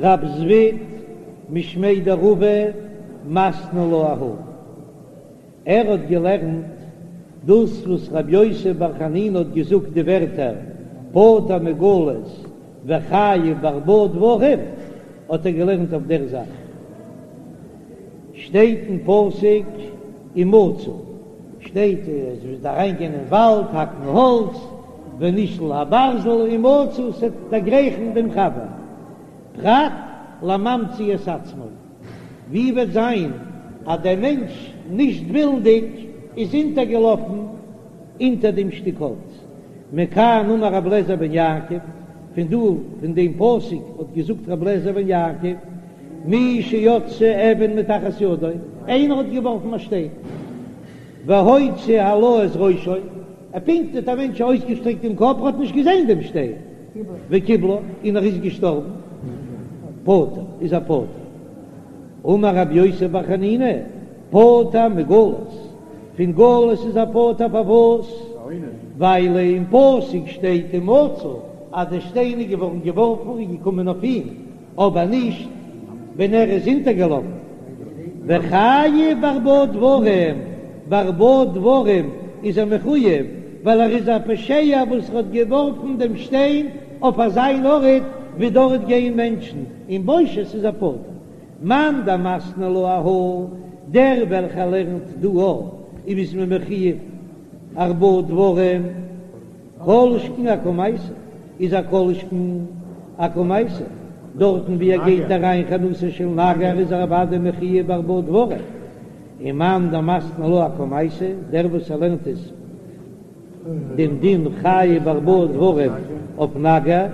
רב זביד משמיה דרבא מתני לה אהא. ער האט געלערנט דאס וואס רבי יוסי בר חנינא האט געזאגט די ווערטער פטור מגלות וחייב בארבעה דברים, האט ער געלערנט אויף דער זאך. שטייט אין פסוק ומצא, שטייט אז מ'וועט אריינגיין אין וואלד האקן האלץ, ונשל הברזל ומצא, ס'וועט דערגרייכן דעם חבר, פרט לממציא את עצמו. ווי וועט זיין אז דער מענטש נישט ווילנדיג איז אונטערגעלאפן אונטער דעם שטיק האלץ? מכאן אמר רבי אליעזר בן יעקב, פון דא פון דעם פסוק האט געזאגט רבי אליעזר בן יעקב, מי שיצתה אבן מתחת ידו, איינער האט געווארפן א שטיין, והוציא הלה את ראשו, ער פונקט האט א מענטש אויסגעשטרעקט דעם קאפ, ער האט נישט געזען דעם שטיין, וקיבלה, און ער איז געשטארבן, פטור, איז ער פטור. אמר רבי יוסי בר חנינא, פטור מגלות, פון גלות איז ער פטור פארוואס? ווייל אין פסוק שטייט ומצא אז דער שטיין איז געווארן געווארפן און געקומען אויף אים, אבער נישט ווען ער איז אונטערגעלאפן. וחייב בארבעה דברים, בארבעה דברים איז ער מחוייב, ווייל ער איז א פושע וואס האט געווארפן דעם שטיין אויף אזא ארט ווי דארט גייען מענטשן, און בושת איז ער פטור. מאן דמתני לה אהא, דער וועלכער לערנט דא א, אויב איז מען מחוייב ארבעה דברים, כל שכן אקמייתא, איז א כל שכן אקמייתא, דארטן ווי ער גייט אריין חנותו של נגר איז ער אוודאי מחוייב בארבעה דברים, און מאן דמתני לה אקמייתא, דער וואס ער לערנט עס דעם דין חייב בארבעה דברים אויף נגר,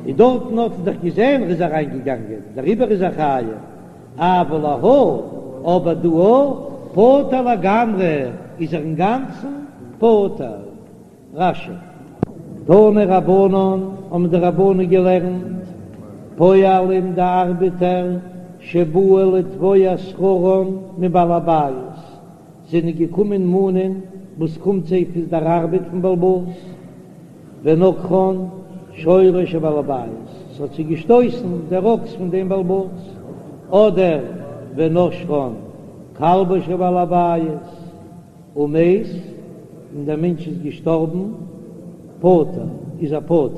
איז דארטן האט ער דאך געזען ער איז אריין געגאנגען דעריבער איז ער חייב. אבל להא, אבער דא פטור לגמרי איז ער אינגאנצן פטור. רש"י. תנו רבנן, האבן די רבנן געלערנט, פועלים די ארבעטער שבאו לתבוע שכרן מבעל הבית, זענען געקומען מאנען וואס קומט זיי פון דער ארבעט פון בעל הבית, ונגחן שורו של בעל הבית, ס'האט זיי געשטויסן דער אקס פון דעם בעל הבית, אדער ונשכן כלבו של בעל הבית, ומת, און דער מענטש איז געשטארבן, פטור, איז ער פטור.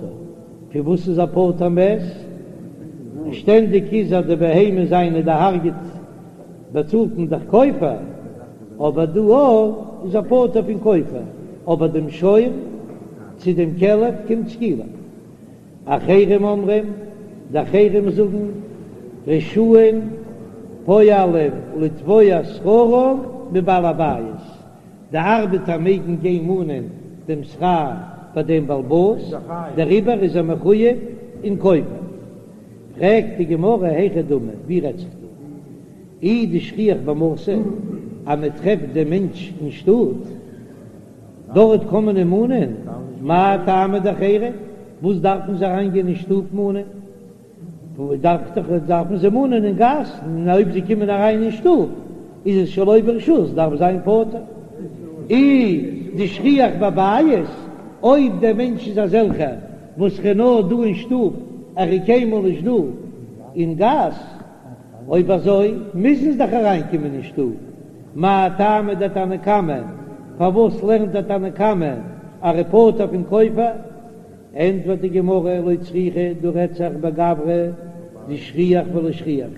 פון וואס איז ער פטור מת? שטענדיג איז אז די בהמה זיינע דערהרגעט באצאלט מען דאך כופר, אבער דא איז ער פטור פון כופר, אבער דעם שור צו דעם כלב קומט סקילה. אחרים אומרים, די אחרים זאגן, רשאין פועלים לתבוע שכרם מבעל הבית, די ארבעטער מעגן גיין מאנען דעם שכר ביי דעם בעל הבית, דעריבער איז ער מחויב אין כופר. פרעגט די גמרא היכי דמי, ווי רעדט זיך דא? אי דשכיח במתא, אז מען טרעפט דעם מענטש אין שטאט, דארט קען מען אים מאנען, מאי טעמא דאחרים, וואס דארפן זיי אריינגיין אין שטוב מאנען? דארף דאך דארפן זיי מאנען אין גאס, און אויב זיי קומען אריין אין שטוב איז עס שלא ברשות, דארף זיין פטור. אי דשכיח בבית, אויב דער מענטש איז אזעלכער וואס ער איז נאר דא אין שטוב, ער איז קיינמאל נישט דא אין גאס, אויב אזוי מוזן זיי דאך אריינקומען אין שטוב, מאי טעמא דתנא קמא, פארוואס לערנט דער תנא קמא אז ער איז פטור פון כופר? ענטפערט די גמרא, לא צריכא, דא רעדט זיך בגברא דשכיח ולא שכיח,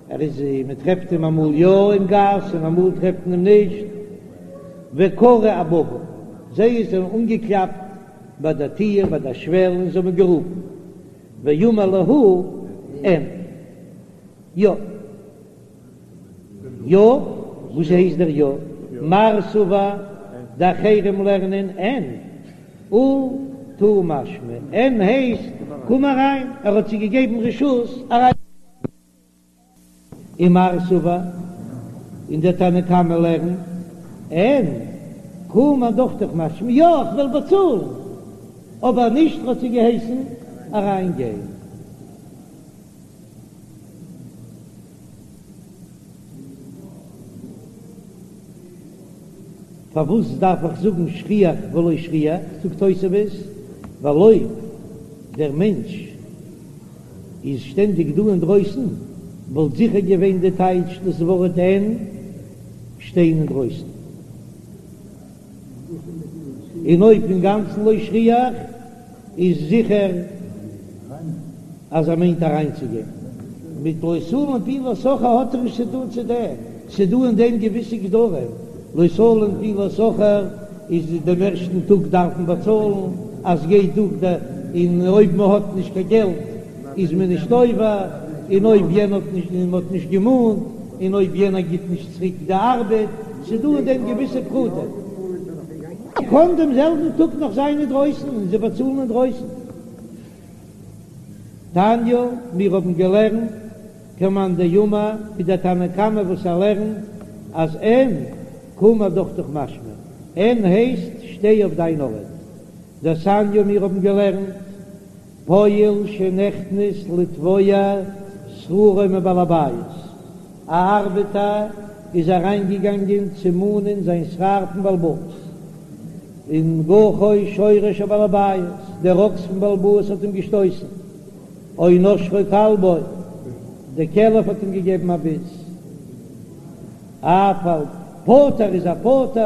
ער איז מען טרעפט אים אמאל יא אין גאס און אמאל טרעפט מען אים נישט, וקרו אבבא, זיי זענען אנגעקלאפט ביי דער טיר ביי דער שוועל און זיי האבן גערופן, ואמר להו אין, יא. יא, וואס הייסט דער יא? מר סבר, די אחרים לערנען אין, אטו משמע, אין הייסט קום אריין, ער האט זיי געגעבן רשות אריין. ומר סבר, און דער תנא קמא לערנט אין, קום אדוכתך משמע, יא איך וועל באצאלן, אבער נישט האט זיי געהייסן אריין גיין. פארוואס דארף איך זאגן שכיח ולא שכיח? זאגט תוספות, ווייל אויב דער מענטש. איז שטענדיג דא אינדרויסן, וואלט זיכער געווען די טייטש דאס ווארט אין שטיין אינדרויסן. און אויב אינגאנצן לא שכיח איז זיכער אז ער מיינט אריינצוגיין. מיט לא תלין פעולת שכיר האט ער נישט צו טון צו דעם, ס'דא אין דעם געוויסע גדרים, לא תלין פעולת שכיר איז דעם ערשטן טאג דארף מען באצאלן, אז גייט דורך די, און אויב מען האט נישט קיין געלט איז מען נישט עובר, און אויב יענער האט נישט און מען האט נישט געמאנט, און אויב יענער גיט נישט צוריק די ארבעט, ס'דא אין דעם געוויסע פרטים. קען דעם זעלבן טאג נאך זיין אינדרויסן און זיי באצאלן אינדרויסן. תניא, מיר האבן געלערנט כמאן דאמר, ווי דער תנא קמא וואס ער לערנט אז אין קום אדוכתך משמע, אין הייסט שטיי אויף דיין ארט. דתניא, מיר האבן געלערנט פועל שנכנס לתבוע שכרו מבעל הבית, א ארבעטער איז אריינגעגאנגען צו מאנען זיין שכר פון בעל הבית, און גחו שורו של בעל הבית, דער אקס פון בעל הבית האט אים געשטויסן, או נשכו כלבו, דער כלב האט אים געגעבן א ביס, אף על פטור איז ער פטור,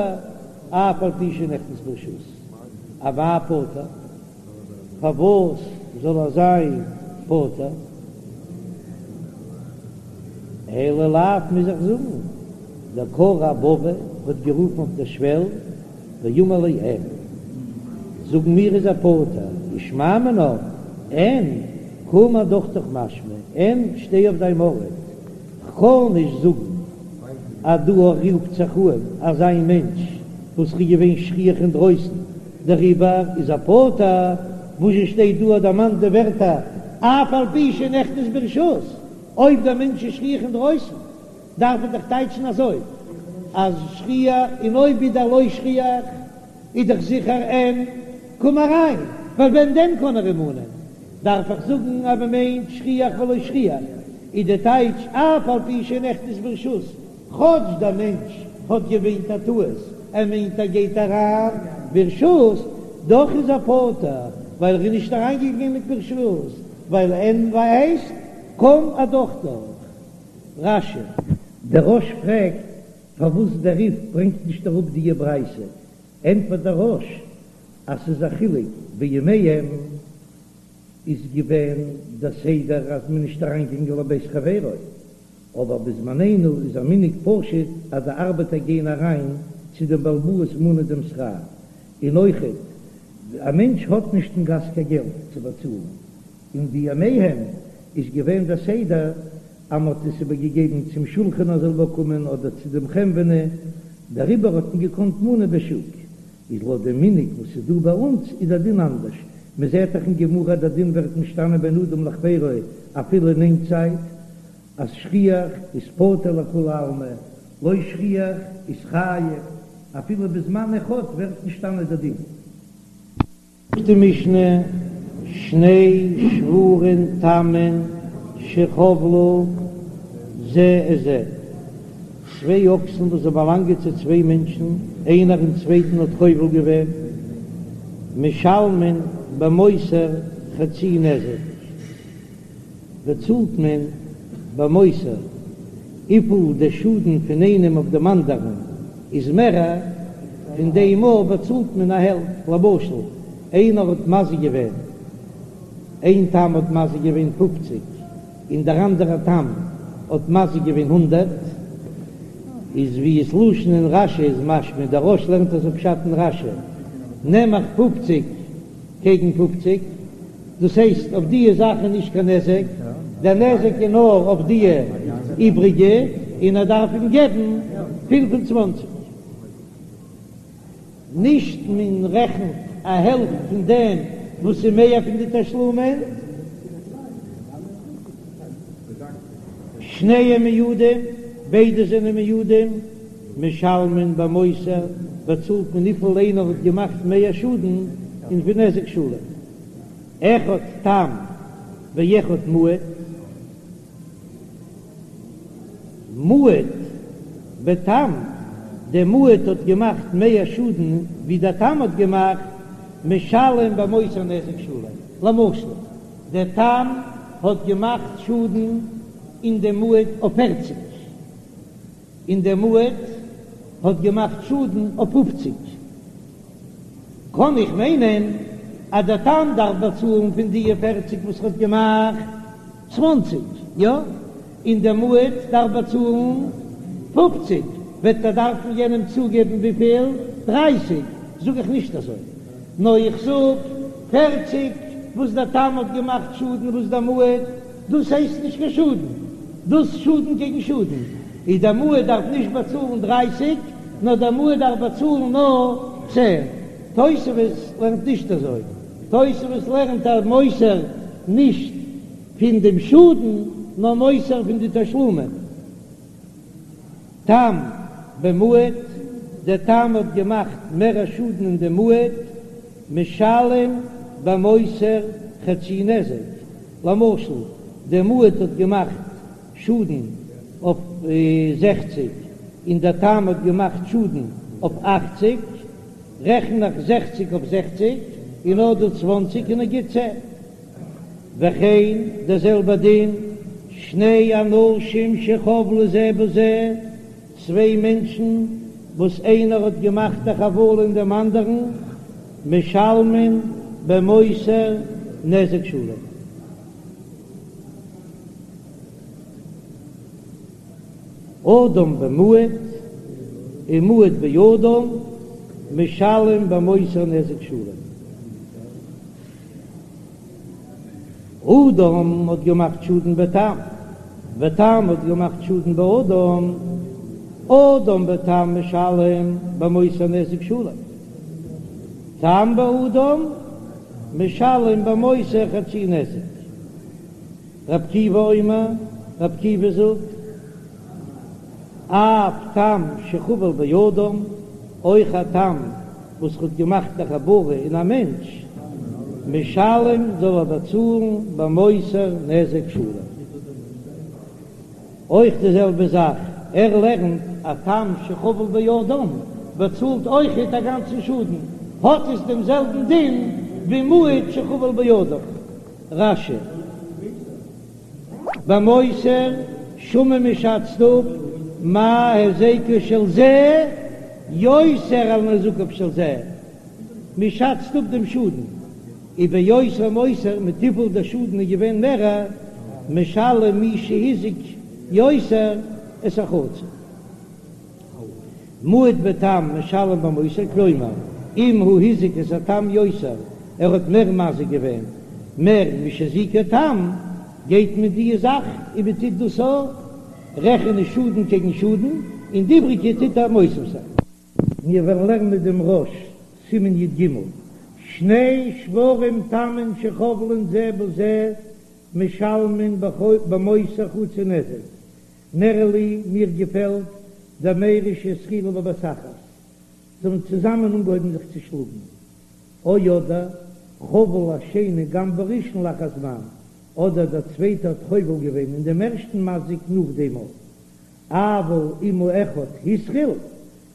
אף על פי שנכנס ברשות, אמאי פטור. פארוואס זאל ער זיין פטור? אלא לאו מוז איך זאגן, דקרי אבבא האט גערופן אויף דער שוועל ואמר ליה אין, זאגן מיר איז ער פטור, ושמע מינה אין קום אדוכתך משמע אין שטיי אויף דיין ארט, כ'קען נישט זאגן אז דא רופט זיך אן אזא מענטש וואס איז געווען שכיח אינדרויסן דעריבער איז ער פטור, וואס זשע שטייט דא דערמאנט די ווערטער אף על פי שנכנס ברשות, אויב דער מענטש איז שכיח אינדרויסן דארף מען דאך טייטשן אזוי אז שכיח און אויב איז ער לא שכיח איז דאך זיכער אין קום אריין, ווייל ווען דען קען ער אים מאנען? דארף איך זאגן אז מען מיינט שכיח ולא שכיח איז די טייטש אף על פי שנכנס ברשות, כאטש דער מענטש האט געמיינט א טעות, ער מיינט ער גייט אריין ברשות, דאך איז ער פטור ווייל ער איז נישט אריינגעגאנגען מיט ברשות, ווייל אין הייסט קום אדוכתך. רש"י. דער רא"ש פרעגט פארוואס דער רי"ף ברענגט נישט אראפ דיע ברייתא, ענטפערט דער רא"ש אז ס'איז א חילוק בימיהם איז געווען דער סדר אז מ'איז נישט אריינגעגאנגען לבית חברו, אבער בזמנינו איז א מנהג פשוט אז די ארבעטער גייען אריין צו דעם בעל הבית מאנען דעם שכר, און אויכעט א מענטש האט נישט אין גאס קיין געלט צו באצאלן, און בימיהם איז געווען דער סדר אז מ'האט עס איבערגעגעבן צום שולחן ער זאל באקומען אדער צו דעם חנווני, דעריבער האט מען געקאנט מאנען בשוק, איז לויט דעם מנהג וואס איז דא ביי אונז איז דער דין אנדערש, מען זעט דאך אין גמרא דער דין ווערט משתנה בין אדם לחבירו אפילו אין איין צייט, אז שכיח איז פטור לכולי עלמא, לא שכיח איז חייב, אפילו בזמן אחד ווערט משתנה דער דין. זאגט די משנה, שני שוורים תמין שחבלו זה את זה, צוויי אקסן וואס זיי באלאנגען צו צוויי מענטשן, איינער דעם צווייטן האט חובל געווען, משלמין במותר חצי נזק. באצאלט מען במותר וויפיל די שאדן פון איינעם אויף דעם אנדערן איז מערער, פון דעם מאל באצאלט מען א העלפט, למשל איינער האט מזיק געווען, איין תם האט מזיק געווען פופציג און דער אנדערער תם האט מזיק געווען הונדערט, איז ווי עס לשון אין רש"י איז משמע, דער רא"ש לערנט אזוי פשט אין רש"י, נעם איך פופציג קעגן פופציג. דאס הייסט אויף דיע זאך איז נישט קיין נזק, דער נזק איז נאר אויף דיע איבריגע, און ער דארף אים געבן 25. נישט מען רעכנט א העלפט פון דעם וואס איז מער פון די תשלומין. שניהם מועדים, ביידע זענען מועדים, משלמין במותר, באצאלט מען וויפיל איינער האט געמאכט מער שאדן, און פון נזק שלם. אחד תם ואחד מועד, מועד בתם, דער מועד האט געמאכט מער שאדן ווי דער תם האט געמאכט, משלם במותר נזק שלם, למשל דער תם. האט געמאכט שאדן אין דעם מועד אויף פערציג, און דער מועד האט געמאכט שאדן אויף פופציג, קען איך מיינען אז דער תם דארף באצאלן פון די פערציג וואס ער האט געמאכט צוואנציג, יא? און דער מועד דארף באצאלן פופציג, וועט ער דארפן יענעם צוגעבן וויפיל? דרייסיג? זאג איך נישט אזוי, נאר איך זאג פערציג וואס דער תם האט געמאכט שאדן וואס דער מועד, דאס הייסט נישט קיין שאדן, דאס שאדן קעגן שאדן, איז דער מועד דארף נישט באצאלן דרייסיג, נאר דער מועד דארף באצאלן נאר צען. תוספות לערנט נישט אזוי, תוספות לערנט אז מותר נישט פון דעם שאדן, נאר מותר פון די תשלומין. תם במועד, דער תם האט געמאכט מער א שאדן אין דעם מועד, משלם במותר חצי נזק, למשל דער מועד האט געמאכט שאדן אויף זעכציג און דער תם האט געמאכט שאדן אויף אכציג, רעכן איך זעכציג אויף זעכציג און נאר דא צוואנציג און ער גיט צען. וכן דער זעלבער דין, שני אנשים שחבלו זה בזה, צוויי מענטשן וואס איינער האט געמאכט א חבלה אין דעם אנדערן, משלמין במותר נזק שלם. אדם במועד ומועד באדם משלם במותר נזק שלם. אדם האט געמאכט שאדן בתם, ותם האט געמאכט שאדן באדם, אדם בתם משלם במותר נזק שלם, תם באדם משלם במותר חצי נזק. רבי עקיבא אומר, רבי עקיבא זאגט, אף תם שחבל באדם, אויך א תם וואס האט געמאכט א חבלה אין א מענטש, משלם זאל ער באצאלן במותר נזק שלם. אויך די זעלבע זאך, ער לערנט א תם שחבל באדם באצאלט אויכעט א גאנצן שאדן, האט עס דעם זעלבן דין ווי מועד שחבל באדם. רש"י. במותר שמין מ'שאצט אפ מה היזקו של זה יותר על נזקיו של זה, מ'שאצט אפ דעם שאדן וביותר מותר מיט וויפיל דער שאדן איז געווען מערער, משלם מי שהזיק יותר את החצי. מועד בתם משלם במותר כלומר אם הוא הזיק את התם יותר ער האט מער מזיק געווען מער משהזיקו תם גייט מען די זאך און מען טוט דאס רעכענען שאדן קעגן שאדן און די איבריגע טוט ער מוסיף זיין. מיר וועלן לערנען דעם רא"ש, סימן י"ג, שני שוורים תמין שחובלין זה בזה משלמין במותר חצי נזק, נראה לי, מיר געפעלט דמיירי שהתחילו בבת אחת, זיי האבן צוזאמען אנגעהויבן זיך צו שלאגן, או אדער חבל השני גם בראשון לאחר זמן, אדער דער צווייטער האט חובל געווען אין דעם ערשטן מזיק נאך דעם אויך, אבל אם האחד התחיל,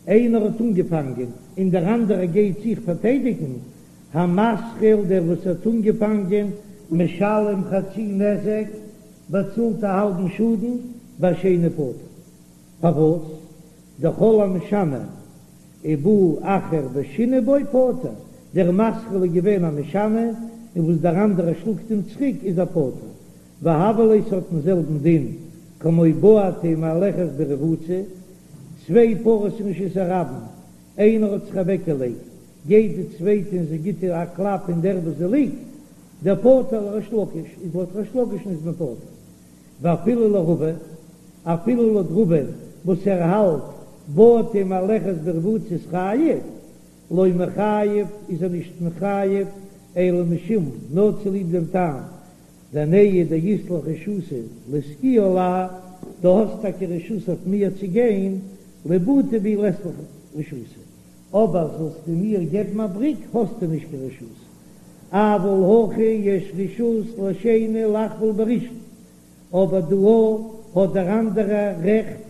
איינער האט אנגעפאנגען און דער אנדערער גייט זיך פארטיידיגן, המתחיל דער וואס האט אנגעפאנגען, משלם חצי נזק, באצאלט א האלבן שאדן והשני פטור. פארוואס? דכל המשנה ובא אחר ושינה בו פטור, דער מתחיל איז געווען א משנה און וואס דער אנדערער שלאגט אים צוריק איז ער פטור. והוה ליה ס'האט דעם זעלבן דין כמו בעטה מהלכת ברבוצה, צוויי פרות אין רשות הרבים, איינער האט זיך אוועקגעלייגט, גייט די צווייטע און זי גיט איר א קלאפ אין דער וואס זי ליגט, דפטור לריש לקיש איז לויט ריש לקיש'ן איז מען פטור. ואפילו לרבא, אפילו לויט רבא וואס ער האלט בעטה מהלכת ברבוצה איז חייב, לא מיחייב איז ער נישט מחייב אלא משום נאר צוליב דעם טעם דנהי דאית לך רשותא לסגויי עלי, דו האסט טאקע רשות אויף מיר צו גיין, לבעוטי בי לית לך רשותא, אבער זאלסטו מיר געבן א בריק האסטו נישט קיין רשות. אבל הכא יש רשות לשני לחבול בראשון, אבער דא האט דער אנדערער רעכט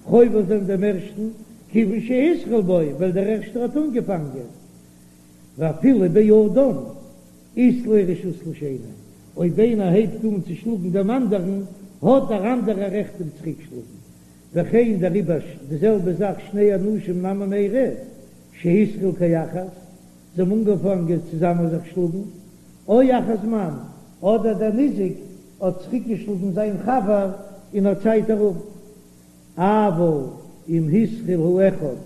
חובל זיין דעם ערשטן, כיוון שהתחיל בו, ווייל דער ערשטער האט אנגעפאנגען, ואפילו באדם אית ליה רשות לשני, אויב איינער הייבט אן צו שלאגן דעם אנדערן, האט דער אנדערער רעכט אים צוריקשלאגן. וכן דעריבער די זעלבע זאך שני אנשים נמי מיירי שהתחילו כאחת, זיי האבן אנגעפאנגען צוזאמען זיך שלאגן, או אחר זמן, אדער דער ניזק האט צוריקגעשלאגן זיין חבר אין א צייט ארום. אבל אם התחיל האחד,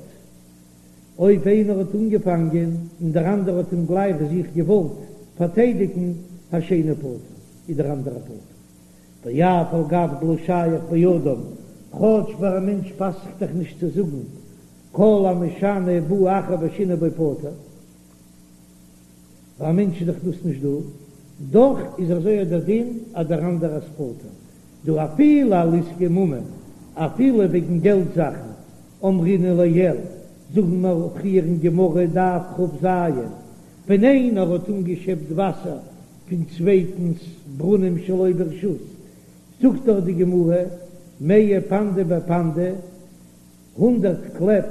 אויב איינער האט אנגעפאנגען און דער אנדערער האט אים גלייך זיך געוואלט פארטיידיגן, השני פטור, איז דער אנדערער פטור. ואף על גב דלא שייך באדם, כאטש ביי א מענטש פאסט זיך דאך נישט צו זאגן כל המשנה ובא אחר ושינה בו פטור, ביי א מענטש איז דאך דאס נישט דא, דאך איז אזוי דער דין אז דער אנדערער איז פטור, דאפילו על עסקי ממון, אפילו וועגן געלט זאכן, אמרינן לעיל, זאגן מיר פריער אין גמרא דף כ"ז, ווען איינער האט אנגעשעפט וואסער פון צווייטנס ברונעם שלא ברשות, זאגט דאך די גמרא, מאה פנדי בפנדא, הונדרעט קלעפ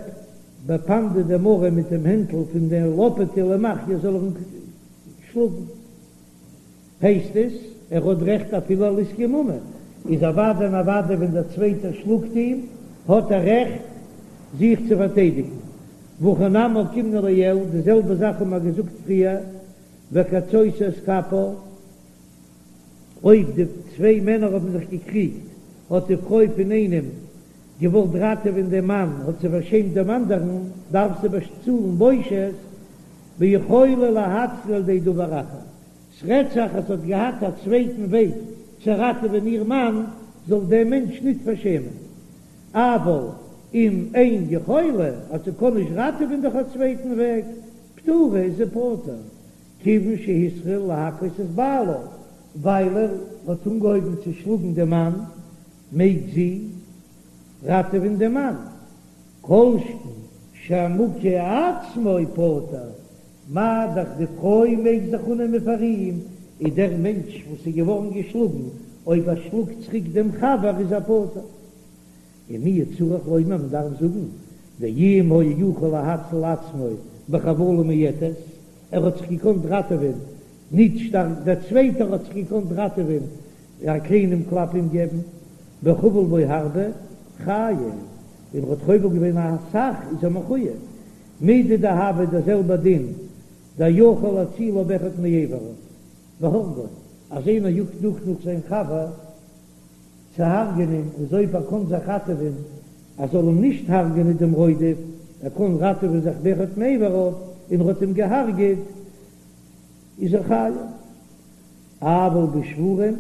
בפנדא דמרא מיט דעם הענטל פון דער לאפעטע למחייה זאל ער אים שלאגן. הייסט עס ער האט רעכט אפילו על עסקי ממון, איז אוודאי און אוודאי ווען דער צווייטער שלאגט אים האט ער רעכט זיך צו פארטיידיגן. והכא נמי אוקימנא לעיל, די זעלבע זאך האבן מיר געזאגט פריער, וקצותו את כפה, אויב די צוויי מענער האבן זיך געקריגט האט די פרוי פון איינעם געוואלט ראטעווען דעם מאן, האט זי פארשעמט דעם אנדערן, דארף זי באצאלן בושת, ביכולה להציל על ידי דבר אחר. ס'רעדט זיך אז זי האט געהאט א צווייטן וועג צו ראטעווען איר מאן, זאל דעם מענטש ניט פארשעמען. אבל אם אין יכולה, אז זי קען נישט ראטעווען דורך א צווייטן וועג, פטורה איז זי פטור, כיוון שהתחיל להכות את בעלה, ווייל ער האט אנגעהויבן צו שלאגן דעם מאן, מעג זי ראטעווען דעם מאן, כל שכן שהמוכה עצמו פטור, מה דאך די פרוי מעג זיך אננעמען פאר אים, איז דער מענטש וואס איז געווארן געשלאגן, אויב ער שלאגט צוריק דעם חבר איז ער פטור. ומיהו צריך לומר מען דארף זאגן, דאם היה יכול להציל עצמו בחבלה מועטת, ער האט זיך געקאנט ראטעווען ניט שטארק, דער צווייטער האט זיך געקאנט ראטעווען א קליינעם קלאפ אים געבן, וחבל בו הרבה, חייב, און ער האט חובל געווען א סך איז ער מחוייב. מידי דהוה דער זעלבער דין, דיכול להצילו באחד מאיבריו, והרגו, אז איינער יאגט נאך נאך זיין חבר צו הרג'ענען, איז אויב ער קען זיך ראטעווען אז זאל אים נישט הרג'ענען דעם רודף, ער קען ראטעווען זיך באחד מאיבריו, און ער האט אים געהארגעט, איז ער חייב. אבל בשוורים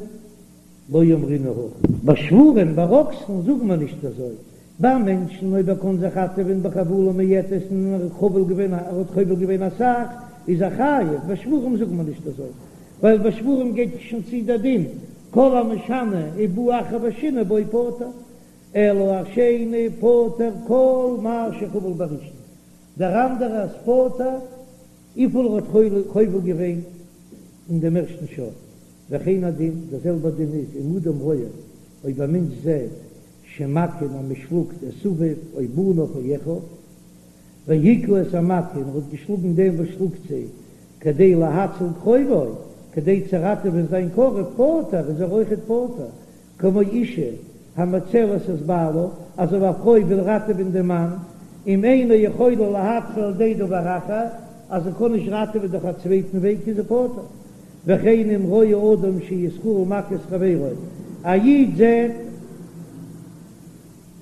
לא אמרינן הכי. ביי שוורים, ביי אקסן, זאגט מען נישט אזוי. ביי מענטשן, אויב ער קען זיך ראטעווען בחבלה מועטת און ער האט חובל געווען, ער האט חובל געווען אסאך, איז ער חייב. ביי שוורים זאגט מען נישט אזוי, ווייל ביי שוורים גייט שוין צו דער דין, כל המשנה ובא אחר ושינה בו פטור, אלא השני פטור כל מה שחבל בראשון, דער אנדערער איז פטור וויפיל ער האט חובל געווען אין דעם ערשטן שור, וכן הדין, דער זעלבער דין איז אם אדם רואה, אויב א מענטש זעט שמכין אז מען שלאגט את אביו או בניו או אחיו, והכה את המכה און ער האט געשלאגן דעם וואס שלאגט זיי, כדי להציל קרובו, כדי צו ראטעווען זיין קרוב, פטור, איז ער אויכעט פטור, כמו אישה המצלת את בעלה, אז אויב א פרוי וויל ראטעווען דעם מאן, אם אינה יכולה להציל על ידי דבר אחר, אז זי קען נישט ראטעווען דורך א צווייטן וועג איז זי פטור. וכן אם רואה אדם שישראל מכה את חברו, א איד זעט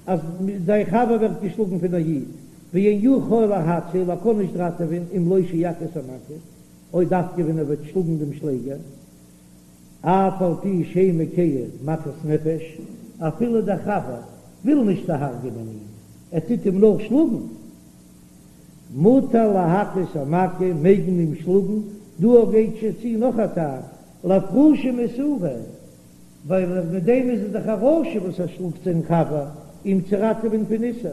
אז זיין חבר ווערט געשלאגן פון א איד, ואין יכול להציל, ער קען נישט ראטעווען, אם לא שיכה את המכה, אויב דווקא ווען ער וועט שלאגן דעם שלעגער. אף על פי שאין מכהו מכת נפש, אפילו דער חבר וויל נישט דערהרג'ענען אים, ער טוט אים נאר שלאגן, מותר להכות המכה, מעג מען אים שלאגן, דא גייט שוין צו נאך א טעם, לאפרושי מאיסורא, ווייל מיט דעם איז ער דאך א רשע וואס ער שלאגט זיין חבר אים צו ראטעווען פון איסור,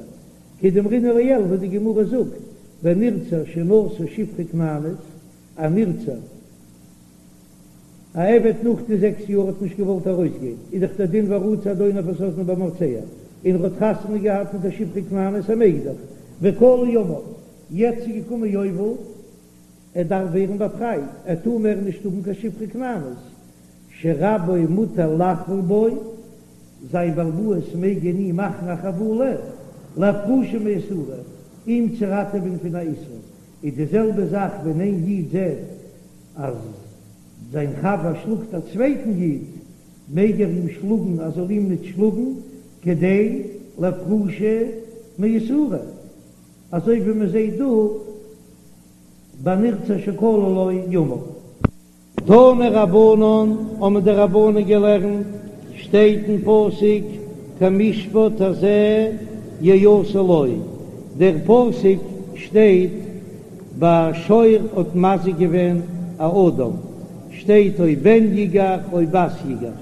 כדאמרינן לעיל וואס די גמרא זאגט, בנרצע שנשא שפחה כנענית, א נרצע. א עבד נאך די זעקס יאר האט נישט געוואלט ארויסגיין, איז דאך דער דין ורצע אדוניו את אזנו במרצע, און ער האט חתונה געהאט מיט א שפחה כנענית ער מעג דאך, וכלו ימיו, יעצט איז געקומען יובל, ער דארף ווערן באפרייט, ער טאר מער נישט האבן קיין שפחה כנענית. שרבו מותר לחבול בו, זיין בעל הבית מעג אין אים מאכן א חבלה, לאפרושי מאיסורא, אים צו ראטעווען פון א איסור, איז די זעלבע זאך ווען איין איד זעט אז זיין חבר שלאגט א צווייטן איד, מעג ער אים שלאגן ער זאל אים ניט שלאגן, כדי לאפרושי מאיסורא, אזוי ווי מען זעט דא ביי נרצע שכלו לו ימיו. תנו רבנן, האבן די רבנן געלערנט, שטייט אין פסוק כמשפט הזה יעשה לו, דער פסוק שטייט ביי שור האט מזיק געווען א אדם, שטייט או בן יגח או בת יגח.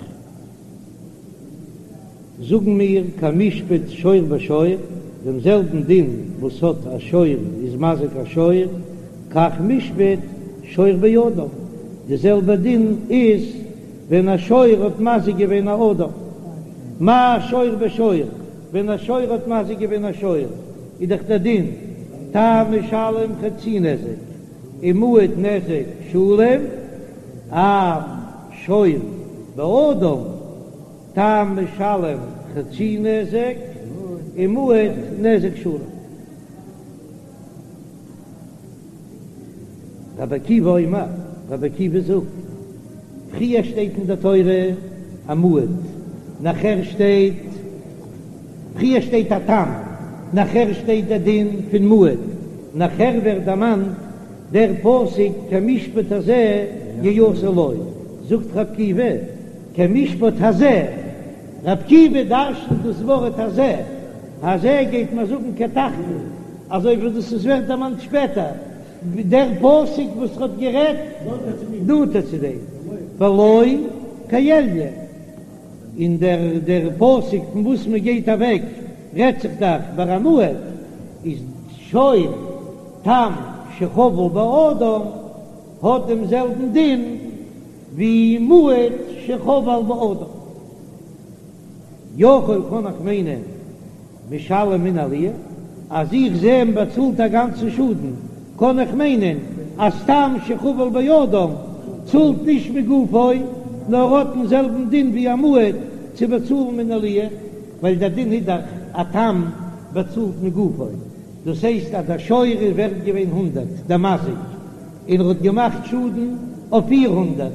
זאגן מיר כמשפט שור בשור, דעם זעלבן דין וואס האט א שור איז מזיק א שור, כך משפט שור באדם, די זעלבע דין איז ווען א שור האט מזיק געווען א אדם. מה שור בשור, ווען א שור האט מזיק געווען א שור, איז דאך דער דין תם משלם חצי נזק, ומועד נזק שלם, אף שור באדם תם משלם חצי נזק ומועד נזק שלם. רבי עקיבא אומר, רבי עקיבא זאגט, פריער שטייט אין די תורה א מועד, נאכער שטייט, פריער שטייט א תם, נאכער שטייט דער דין פון מועד, נאכער ווערט דערמאנט דער פסוק כמשפט הזה יעשה לו, זאגט רבי עקיבא, כמשפט הזה, רבי עקיבא דרשנ'ט דאס ווארט הזה, הזה גייט מען זאגן כתחתון, אזוי ווי דאס איז ווערט דערמאנט שפעטער, דער פסוק וואס האט גערעדט נאנטער צו דעם, ולא כעליון, און דער דער פסוק פון וואס מען גייט אוועק רעדט זיך דאך ביי א מועד, איז שור תם שחבל באדם האט דעם זעלבן דין ווי מועד שחבל באדם. יכול קען איך מיינען משלם מן העליה, אז איך זע מען באצאלט א גאנצן שאדן, קען איך מיינען אז תם שחבל באדם צאלט נישט מגופו, נאר האט דעם זעלבן דין ווי א מועד צו באצאלן מן העליה, ווייל דער דין איז דאך א תם באצאלט מגופו, דאס הייסט אז דער שור איז ווערט געווען הונדרעט, דער מזיק, און ער האט געמאכט שאדן אויף 400,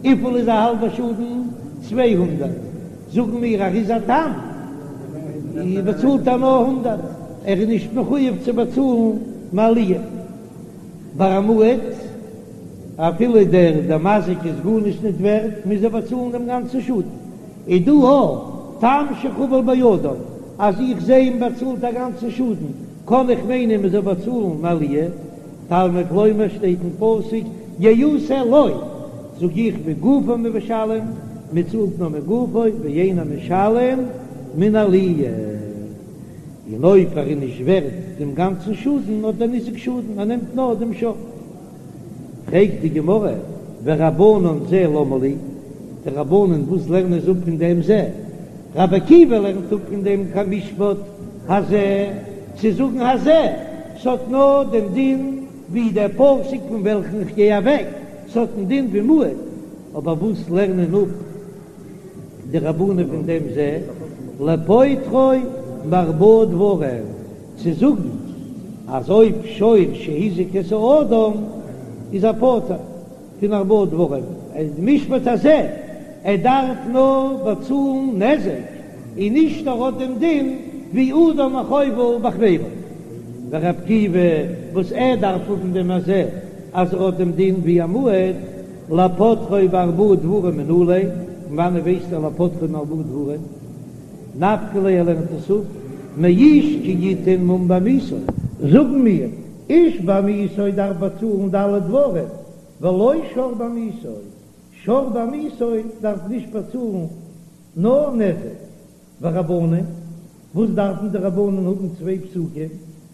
וויפיל איז א האלבע שאדן? 200, זאגן מיר ער איז א תם, באצאלט ער נאר הונדרעט, ער איז נישט מחויב צו באצאלן מעליה. ביי א מועד, אפילו דער דער מזיק איז גארנישט ניט ווערט, מוז ער באצאלן דעם גאנצן שאדן. איז דא א תם שחבל באדם, אז איך זע מען באצאלט א גאנצן שאדן, קען איך מיינען מען זאל באצאלן מעליה. תלמוד לומר שטייט אין פסוק יעשה לו, זאג איך מגופו משלם, מען צאלט נאר מגופו ואינו משלם מן העליה, און אויב ער איז נישט ווערט דעם גאנצן שאדן האט דער ניזק שאדן, ער נעמט נאר דעם שור. פרעגט די גמרא, ורבנן זה למה לי, די רבנן וואס לערנען זיי אפ פון דעם זה? רבי עקיבא לערנט אפ פון דעם כמשפט הזה, צו זאגן הזה, ס'האט נאר דעם דין ווי דער פסוק פון וועלכן איך גיי אוועק, ס'האט דעם דין ווי מועד, אבער וואס לערנען אפ די רבנן פון דעם זה, לפוטרו מארבעה דברים, צו זאגן אז אויב שור שהזיק את האדם איז ער פטור פון ארבעה דברים, משפט הזה, ער דארף נאר באצאלן נזק, און נישט ער האט דעם דין ווי אדם החובל בחבירו. ורבי עקיבא וואס ער דארף האבן דעם הזה אז ער האט דעם דין ווי א מועד, לפוטרו בארבעה דברים מנא ליה, פון וואנעט ווייסט ער לפוטרו מארבעה דברים? נפקא ליה ער לערנט עס אפ מאיש כי יתן מום בעמיתו. זאגן מיר, איש בעמיתו דארף באצאלן ד' דברים, ולא שור בעמיתו, שור בעמיתו דארף נישט באצאלן נאר נזק. ורבנן, וואס דארפן די רבנן האבן צוויי פסוקים?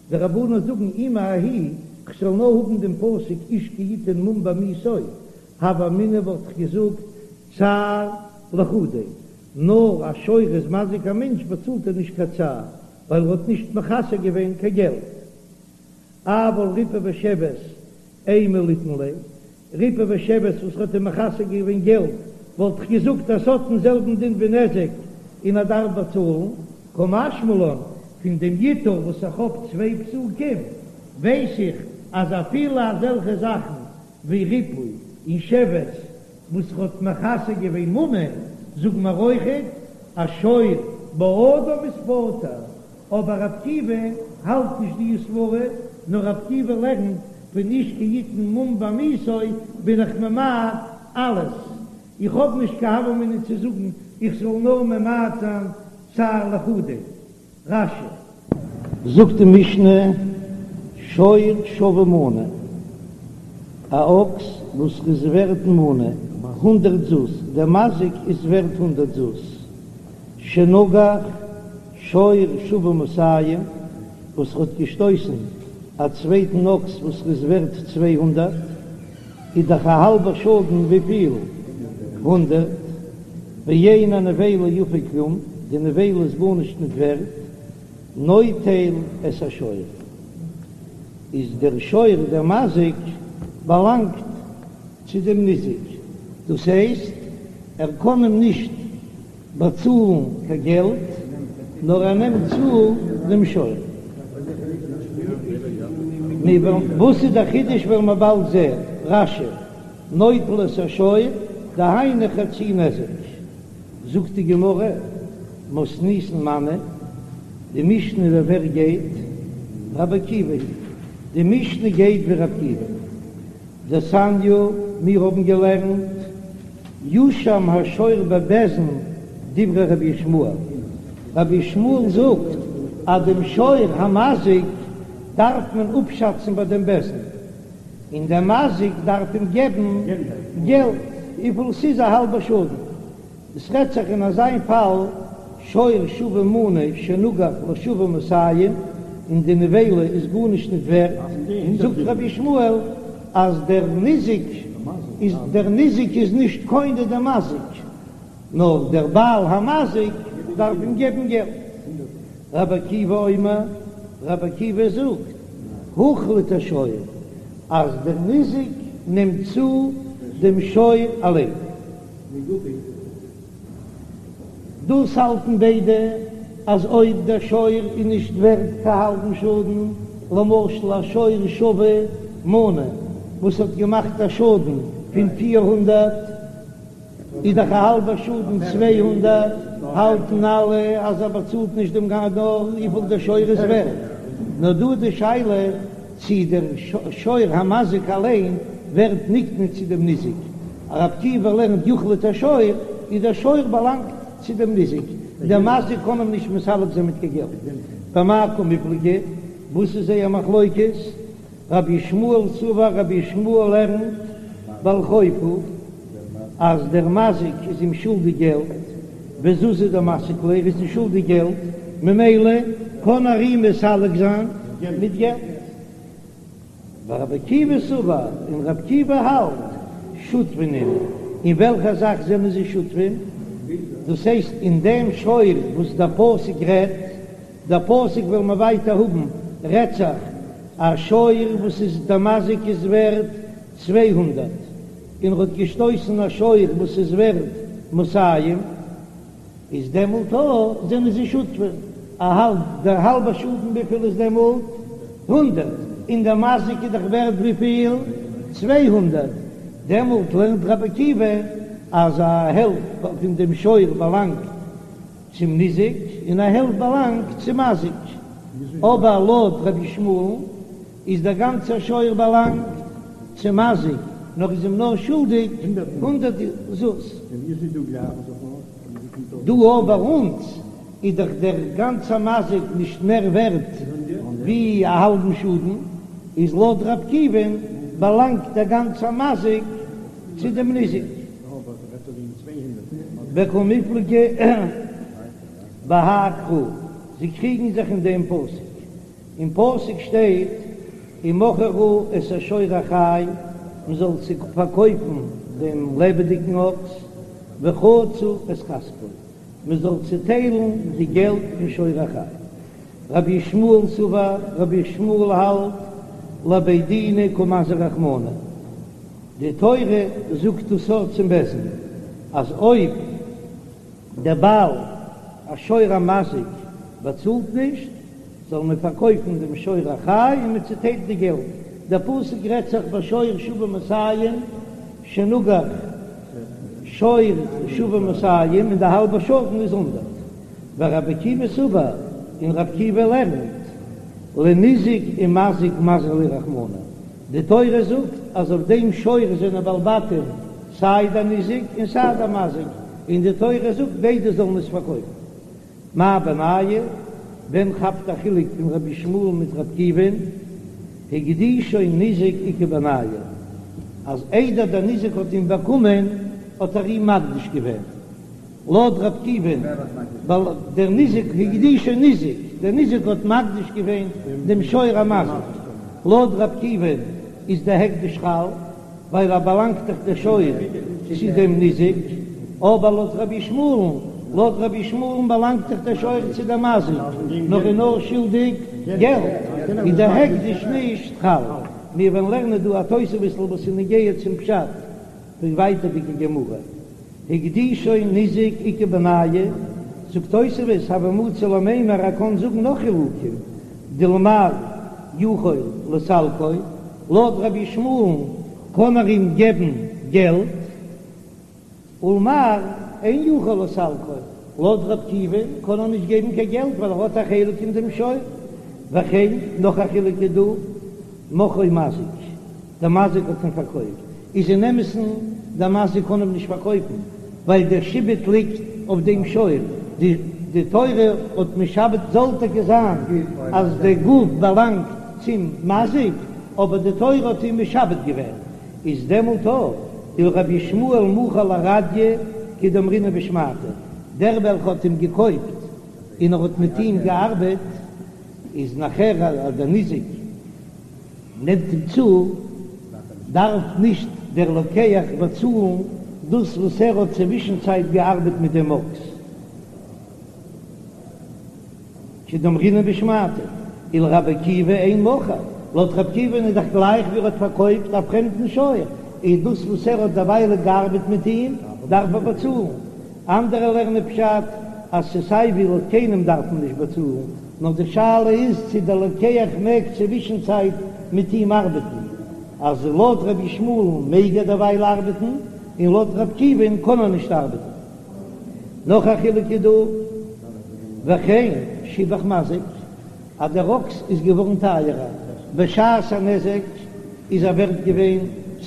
די רבנן זאגן אי מההיא, כ'זאל נאר האבן דעם פסוק איש כי יתן מום בעמיתו, הוה אמינא וואלט איך געזאגט צער לחודיה, נאר א שור איז מזיק א מענטש באצאלט ער נישט קיין צער ווייל ער האט נישט מחסר געווען קיין געלט. אבל ריפוי ושבת אימא ליתן ליה, ריפוי ושבת וואס האט אים מחסר געווען געלט. וואלט איך געזאגט אז ס'האט דעם זעלבן דין ווי נזק און ער דארף באצאלן, קא משמע לן, פון דעם ייתור וואס איך האב צוויי פסוקים ווייס איך אז אפילו אזעלכע זאכן ווי ריפוי און שבת וואס ר'האט מכסה געווען ממון, זאגן מיר אויכעט אז שור באדם איז פטור, אבער ר' עקיבא האלט נישט די סברה, נאר ר' עקיבא לערנט פון איש כי יתן מום בעמיתו בין איך ממעט אלעס, איך האב נישט קיין הוה אמינא צו זאגן איך זאל נאר ממעט זיין צער לחודיה. רש"י. זאגט די משנה, שור שווה מנה, א אקס וואס איז ווערט מנה, הונדרעט זוז, דער מזיק איז ווערט הונדרעט זוז, שנגח שור שווה מאתים, וואס האט געשטויסן א צווייטן אקס וואס איז ווערט 200, איז דאך א האלבע שאדן וויפיל? הונדרעט, ואין הנבילה יפה כלום, די נבילה איז גארנישט ניט ווערט, נוטל את השור, איז דער שור דער מזיק באלאנגט צו דעם ניזק, דאס הייסט ער קען אים נישט באצאלן קיין געלט, נאר ער נעמט צו דעם שור. וואס איז דער חידוש וועלן מיר באלד זען, רש"י, נוטל את השור, דהיינו חצי נזק. זאגט די גמרא, מתניתין מני, די משנה ווי ווער גייט? רבי עקיבא היא, די משנה גייט ווי רבי עקיבא. דתניא, מיר האבן געלערנט, יושם השור בבית דין דברי רבי ישמעאל, רבי ישמעאל זאגט אז דעם שור המזיק דארף מען אפשאצן ביי דעם בית דין, און דער מזיק דארף אים געבן געלט וויפיל ס'איז א האלבע שאדן. עס רעדט זיך אין אזיין פאל שור שווה מנה שנגח לשווה מאתים, און די נבילה איז גארנישט ניט ווערט, זאגט רבי ישמעאל אז דער ניזק איז דער ניזק איז נישט קונה דעם מזיק, נאר דער בעל המזיק דארף אים געבן געלט. רבי עקיבא אומר, רבי עקיבא זאגט, הוחלט השור, אז דער ניזק נעמט צו דעם שור אליין. דאס האלטן ביידע אז אויב דער שור איז נישט ווערט קיין האלבן שאדן, למשל א שור שווה מנה וואס האט געמאכט א שאדן פון 400, איז דאך א האלבע שאדן 200, האלטן אלע אז ער באצאלט נישט דעם גאנ נאר וויפיל דער שור איז ווערט. נאר דא איז די שאלה צי דער שור המזיק אליין ווערט נקנה צו דעם ניזק. רבי עקיבא לערנט יוחלט השור, איז דער שור באלאנגט צו דעם ניזק, דער מזיק קען אים נישט מסלק זיין מיט קיין געלט. במאי קמיפלגי, וואס איז זייער מחלוקת? רבי ישמעאל סבר, רבי ישמעאל לערנט בעל חוב הוא, אז דער מזיק איז אים שולדיג געלט, וזוזי דמסיק ליה, ער איז אים שולדיג געלט, ממילא קען ער אים מסלק זיין מיט געלט. ורבי עקיבא סבר, און רבי עקיבא האלט, שותפין נינהו, אין וועלכע זאך זענען זיי שותפים? דאס הייסט אין דעם שור וואס דער פסוק רעדט, דער פסוק וועלן מיר ווייטער האבן, רעדט זיך א שור וואס איז דער מזיק איז ווערט 200, און ער האט געשטויסן א שור וואס איז ווערט מאתים, איז דעמאלט אויך זענען זיי שותפים, א האלב, דער האלבער שאדן וויפיל איז דעמאלט? הונדרעט, און דער מזיק איז דאך ווערט וויפיל? 200, דעמאלט לערנט רבי עקיבא אז א העלפט פון דעם שור באלאנגט צום ניזק און א העלפט באלאנגט צום מזיק, אבער לויט רבי ישמעאל'ן איז דער גאנצער שור באלאנגט צום מזיק, נאר איז אים נאר שולדיג הונדרעט זוז. דא אבער ביי אונז איז דאך דער גאנצער מזיק נישט מער ווערט ווי א האלבן שאדן, איז לויט רבי עקיבא'ן באלאנגט דער גאנצער מזיק צו דעם ניזק. וקמיפלגי בהאי קרא, זיי קריגן זיך אין דעם פסוק. אין פסוק שטייט ומכרו את השור החי, מען זאל פארקויפן דעם לעבעדיגן אקס, וחצו את כספו, מען זאל צעטיילן די געלט פון שור החי. רבי ישמעאל סבר, רבי ישמעאל האלט, לבי דינא קא מזהר רחמנא, די תורה זאגט דאס אויך צום בית דין. אז אויב דער בעל השור המזיק באצאלט נישט, זאל מען פארקויפן דעם שור החי און מען צוטיילט די געלט. דער פסוק רעדט זיך ביי שור שוה מאתים שנגח שור שוה מאתים און די האלבע שאדן איז הונדערט. ורבי עקיבא סבר, און רבי עקיבא לערנט, לניזק ומזיק מזהר ליה רחמנא, די תורה זאגט אז אויף דעם שור זענען בעלי בתים סיי דער ניזק און סיי דער מזיק, און די תורה זאגט ביידע זאלן עס פארקויפן. מאי בינייהו? ווען כאפט א חילוק פון רבי ישמעאל מיט רבי עקיבא'ן? הקדישו ניזק איכא בינייהו, אז איידער דער ניזק האט אים באקומען האט ער אים מקדיש געווען. לויט רבי עקיבא'ן, ווייל דער ניזק הקדישו ניזק, דער ניזק האט מקדיש געווען דעם שור המזיק, לויט רבי עקיבא'ן איז דער הקדש חל, ווייל ער באלאנגט דאך דער שור צו דעם ניזק, אבער לויט רבי ישמעאל'ן, לויט רבי ישמעאל'ן באלאנגט דאך דער שור צו דעם מזיק, נאר איז נאר שולדיג געלט, איז דער הקדש נישט חל. מיר וועלן לערנען דא א תוספות'ל וואס איז נוגע צום פשט פון ווייטערדיגע גמרא. הקדישו ניזק איכא בינייהו, זאגט תוספות, הוה מצי למימר ער קען זאגן נאך חילוקים, דלמר יכול לסלקו, לויט רבי ישמעאל'ן קען ער אים געבן געלט, ולמר אין יכול לסלקו, לויט רבי עקיבא'ן קען ער נישט געבן קיין געלט ווייל ער האט א חלק אין דעם שור, וכן נאך א חילוק איז דא, מכרו מזיק, דער מזיק האט אים פארקויפט, איז אין אמת'ן דער מזיק קען אים נישט פארקויפן, ווייל דער שעבוד ליגט אויף דעם שור, די תורה האט משעבד זאל טאקע זיין אז דער גוף באלאנגט צום מזיק, אבער די תורה האט אים משעבד געווען, איז דעמאלט אויך ולרבי ישמעאל מכר לרדיא כדאמרינן בשמעתא, דער וועלכע האט אים געקויפט און ער האט מיט אים געארבעט, איז נאכער אז דער ניזק נעמט אים צו, דארף נישט דער לוקח באצאלן דאס וואס ער האט צווישנצייט געארבעט מיט דעם אקס, כדאמרינן בשמעתא, ולרבי עקיבא אין מכר, לויט רבי עקיבא'ן איז דאך גלייך ווי ער האט פארקויפט א פרעמדן שור, איז דאס וואס ער האט דערוויילע געארבעט מיט אים דארף ער באצאלן. אנדערע לערנען פשט אז ס'סיי ווי לויט קיינעם דארף מען נישט באצאלן, נאר די שאלה איז צו דער לוקח מעג צווישנצייט מיט אים ארבעטן, אז לויט רבי ישמעאל'ן מעג ער דערווייל ארבעטן, און לויט רבי עקיבא'ן קען ער נישט ארבעטן. נאך א חילוק איז דא, וכן שיבח מזיק, אז דער אקס איז געווארן טייערער בשעת הנזק איז ער ווערט געווען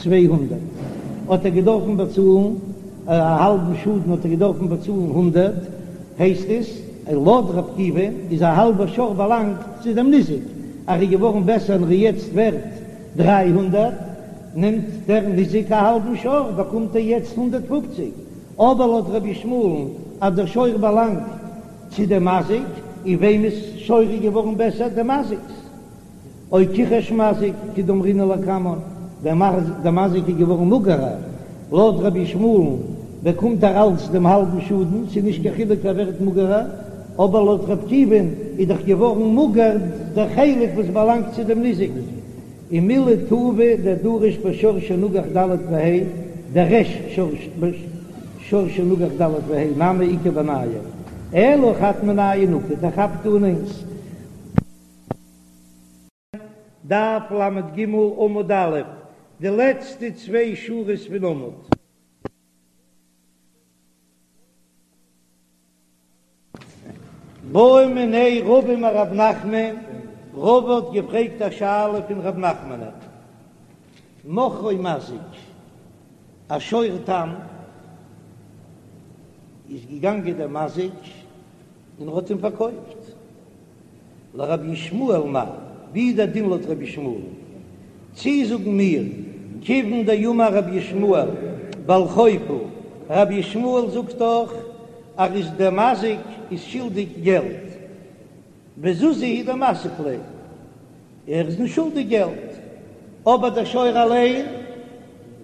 200 האט ער געדארפן באצאלן א האלבן שאדן האט ער געדארפן באצאלן הונדערט, הייסט עס לויט ר' עקיבא איז א האלבע שור באלאנגט צו דעם ניזק, אז ער איז געווארן בעסער און ער איז יעצט ווערט 300, נעמט דער ניזק א האלבן שור באקומט ער יעצט 150, אבער לויט רבי ישמעאל'ן אז דער שור באלאנגט צו דעם מזיק, און וועמענס שור איז געווארן בעסער? דעם מזיק'ס. או כיחש מזיק כדאמרינן לקמן, דער מזיק איז געווארן מאגערער, לויט רבי ישמעאל'ן באקומט ער אלץ דעם האלבן שאדן, ס'איז נישט קיין חילוק ער ווערט מאגערער, אבער לויט ר' עקיבא'ן איז דאך געווארן מאגער דער חלק וואס באלאנגט צו דעם ניזק. ומילי טובא דדריש בשור שנגח ד' וה', דריש שור שנגח ד' וה' נמי איכא בינייהו, אלא חד מינייהו נקט, ער כאפט אן איינס. דף ל"ג עמוד א', די לעצטע צוויי שורות פון עמוד. בעא מיניה רבא מרב נחמן, רבא האט געפרעגט א שאלה פון רב נחמנ'ן, מכרו מזיק, א שור תם, איז געגאנגען דער מזיק און ער האט אים פארקויפט. לרבי ישמעאל מהו, ווי איז דער דין לויט רבי ישמעאל? צי זאגן מיר, כיוון דאמר רבי ישמעאל בעל חוב הוא, רבי ישמעאל זאגט דאך אז איז דער מזיק איז שולדיג געלט, וזוזי הוא דמסיק ליה, ער איז נישט שולדיג געלט, אבער דער שור אליין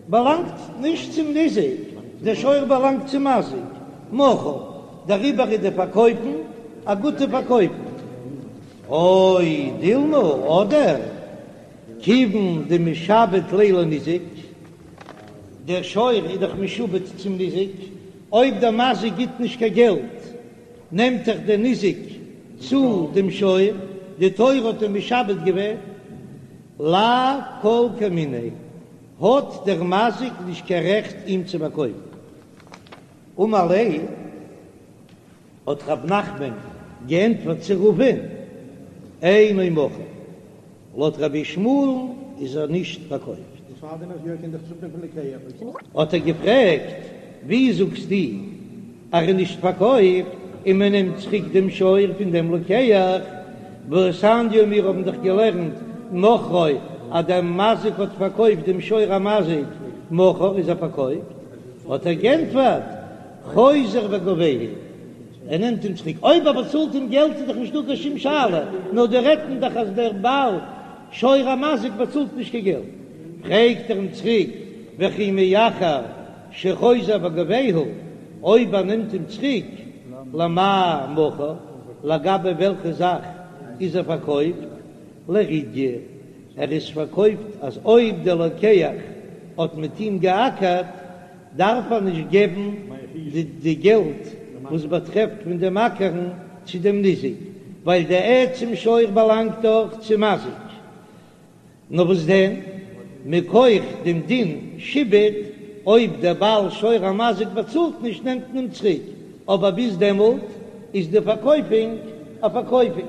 באלאנגט נישט צום ניזק, דער שור באלאנגט צום מזיק, מכור, דעריבער איז די פארקויפן א גוטע פארקויפן. או דילמא, אדער כיוון דמשעבד ליה לניזק, דער שור איז דאך משועבד צום ניזק. אויב דער מזיק גיט נישט קיין געלט, נעמט דאך דער ניזק צו דעם שור, די תורה האט אים משעבד געווען, לאו כל כמיניה, האט דער מזיק נישט קיין רעכט אים צו פארקויפן. אמר ליה, האט רב נחמן געענטפערט צו רבא'ן, אינו מכור, לויט רבי ישמעאל'ן איז ער נישט פארקויפט. האט ער געפרעגט, ווי זאגסטו אז ער איז נישט פארקויפט און מען נעמט צוריק דעם שור פון דעם לוקח, והתניא מיר האבן דאך געלערנט מכרו אז דער מזיק האט פארקויפט דעם שור המזיק, מכור איז ער פארקויפט, האט ער געענטפערט, חוזר וגובהו, ער נעמט אים צוריק, אויב ער באצאלט אים געלט איז דאך נישטא קיין שום שאלה, נאר דא רעדט מען דאך אז דער בעל שור המזיק באצאלט נישט קיין געלט, פרעגט ער אים צוריק, וכי מאחר שחוזר וגובהו, אויב ער נעמט אים צוריק, למאי מכור, לגבי וועלכע זאך איז ער פארקויפט, לרידיא, ער איז פארקויפט אז אויב דער לוקח האט מיט אים געאקערט, דארף ער נישט געבן די געלט וואס באטרעפט פון דעם אקערן צו דעם ניזק, ווייל די עצם שור באלאנגט דאך צום מזיק. נאר וואס דען, מכח דעם דין שעבוד, אויב דער בעל שור המזיק באצאלט נישט נעמט מען אים צוריק, אבער ביז דעמאלט איז די פארקויפונג א פארקויפונג.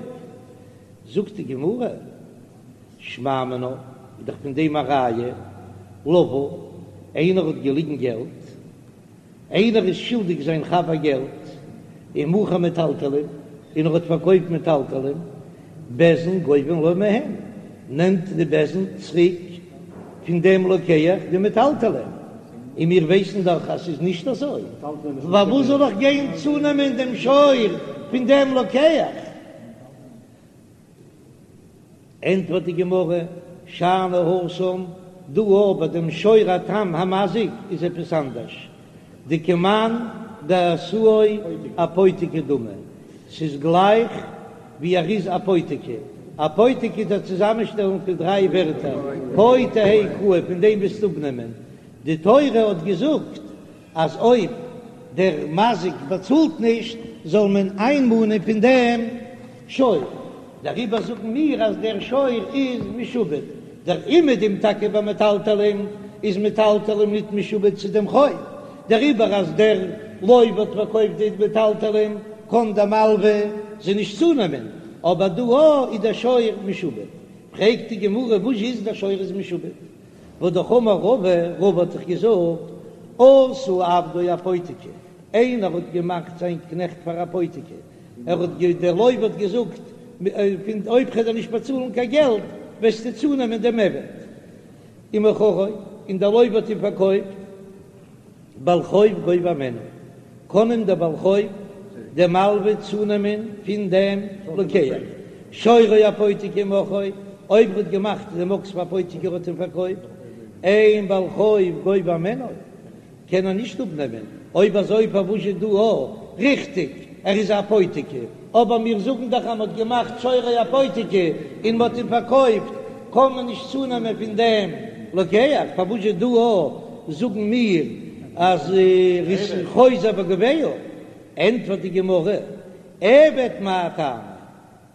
זאגט די גמרא. שמע מינה, איז דאך פון דעם א ראיה, לוה, איינער האט געליגן געלט, איינער איז שולדיג זיין חבר געלט, ומכר מטלטלין, און ער האט פארקויפט מטלטלין, בית דין גובין לו מהן, נעמט די בית דין צוריק פון דעם לוקח די מטלטלין, און מיר ווייסן דאך אז ס'איז נישט אזוי, פארוואס זאל איך גיין צונעמען דעם שור פון דעם לוקח? ענטפערט די גמרא, שאני התם, דא ביי דעם שור התם המזיק איז עפעס אנדערש, דכמאן דעשאו אפותיקי דמי, ס'איז גלייך ווי ער איז אפותיקי, אפותיקי איז א צוזאמענשטעלונג פון דריי ווערטער, פה תהא קאי, פון דעם וועסטו אפנעמען, די תורה האט געזאגט אז אויב דער מזיק באצאלט נישט זאל מען איינמאנען פון דעם שור, דעריבער זאגן מיר אז דער שור איז משועבד, דער אומעדום טאקע ביי מטלטלין איז מטלטלין ניט משועבד צו דעם חוב, דעריבער אז דער לוה האט פארקויפט די מטלטלין קען דער מלווה זיי נישט צונעמען, אבער דא איז דער שור משועבד. פרעגט די גמרא וואס איז דער שור איז משועבד? והא דאך אמר רבא, רבא האט דאך געזאגט, עשה עבדו אפותיקי, איינער האט געמאכט זיין קנעכט פאר אפותיקי, ער האט גע דער לוה האט געזאגט, פון אויב כ'וועל דיר נישט באצאלן קיין געלט, וועסטו צונעמען דעם עבד. ומכרו, און דער לוה האט אים פארקויפט. בעל חוב גובה הימנו, קען אים דער בעל חוב דער מלווה צונעמען פון דעם לוקח, שורו אפותיקי ומכרו, אויב ער האט געמאכט דעם אקס פאר אפותיקי ער האט אים פארקויפט, אין בעל חוב גובה הימנו, קען ער נישט אפנעמען, אויב אזוי פארוואס איז דא א, ריכטיג, ער איז אפותיקי, אבער מיר זאגן דאך אז מען האט געמאכט שורו אפותיקי און מען האט אים פארקויפט, קען מען נישט צונעמען פון דעם לוקח, פארוואס איז דא א זאגן מיר אז ער איז חוזר וגובהו? ענטפערט די גמרא, עבד מאי טעמא,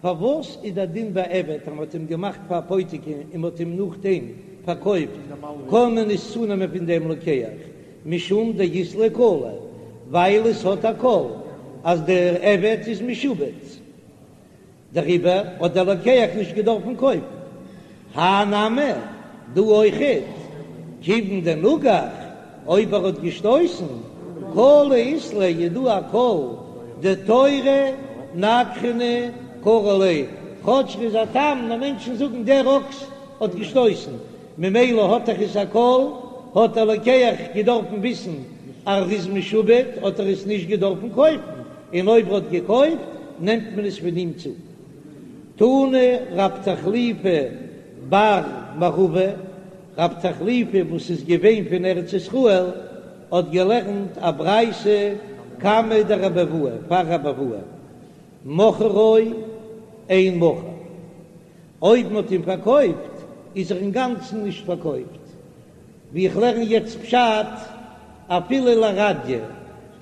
פארוואס איז דער דין ביי עבד אז מען האט אים געמאכט פאר אפותיקי און מען האט אים נאכדעם פארקויפט קען מען נישט צונעמען פון דעם לוקח, משום דאית ליה קלא, ווייל עס האט א קול אז דער עבד איז משועבד, דעריבער האט דער לוקח נישט געדארפן קויפן. הא נמי, דא אויכעט, כיוון דנגח, אויב ער האט געשטויסן, קלא אית ליה איז דא א קול, דתורא נגחנא קרו ליה, כאטש ר'איז א תם, נאר מענטשן זאגן דער אקס האט געשטויסן, ממילא האט דאך עס א קול, האט דער לוקח געדארפן וויסן אז ר'איז משועבד, האט ער עס נישט געדארפן קויפן, און אויב ר'האט געקויפט נעמט מען עס פון אים צו. תני רב תחליפא בר מערבא, רב תחליפא וואס איז געווען פון ארץ ישראל האט געלערנט א ברייתא קמיה דרבי אבהו פאר רבי אבהו, מכרו אין מכור. אויב מ'האט אים פארקויפט איז ער אינגאנצן נישט פארקויפט, ווי איך לערן יעצט פשט, אפילו לרדיא.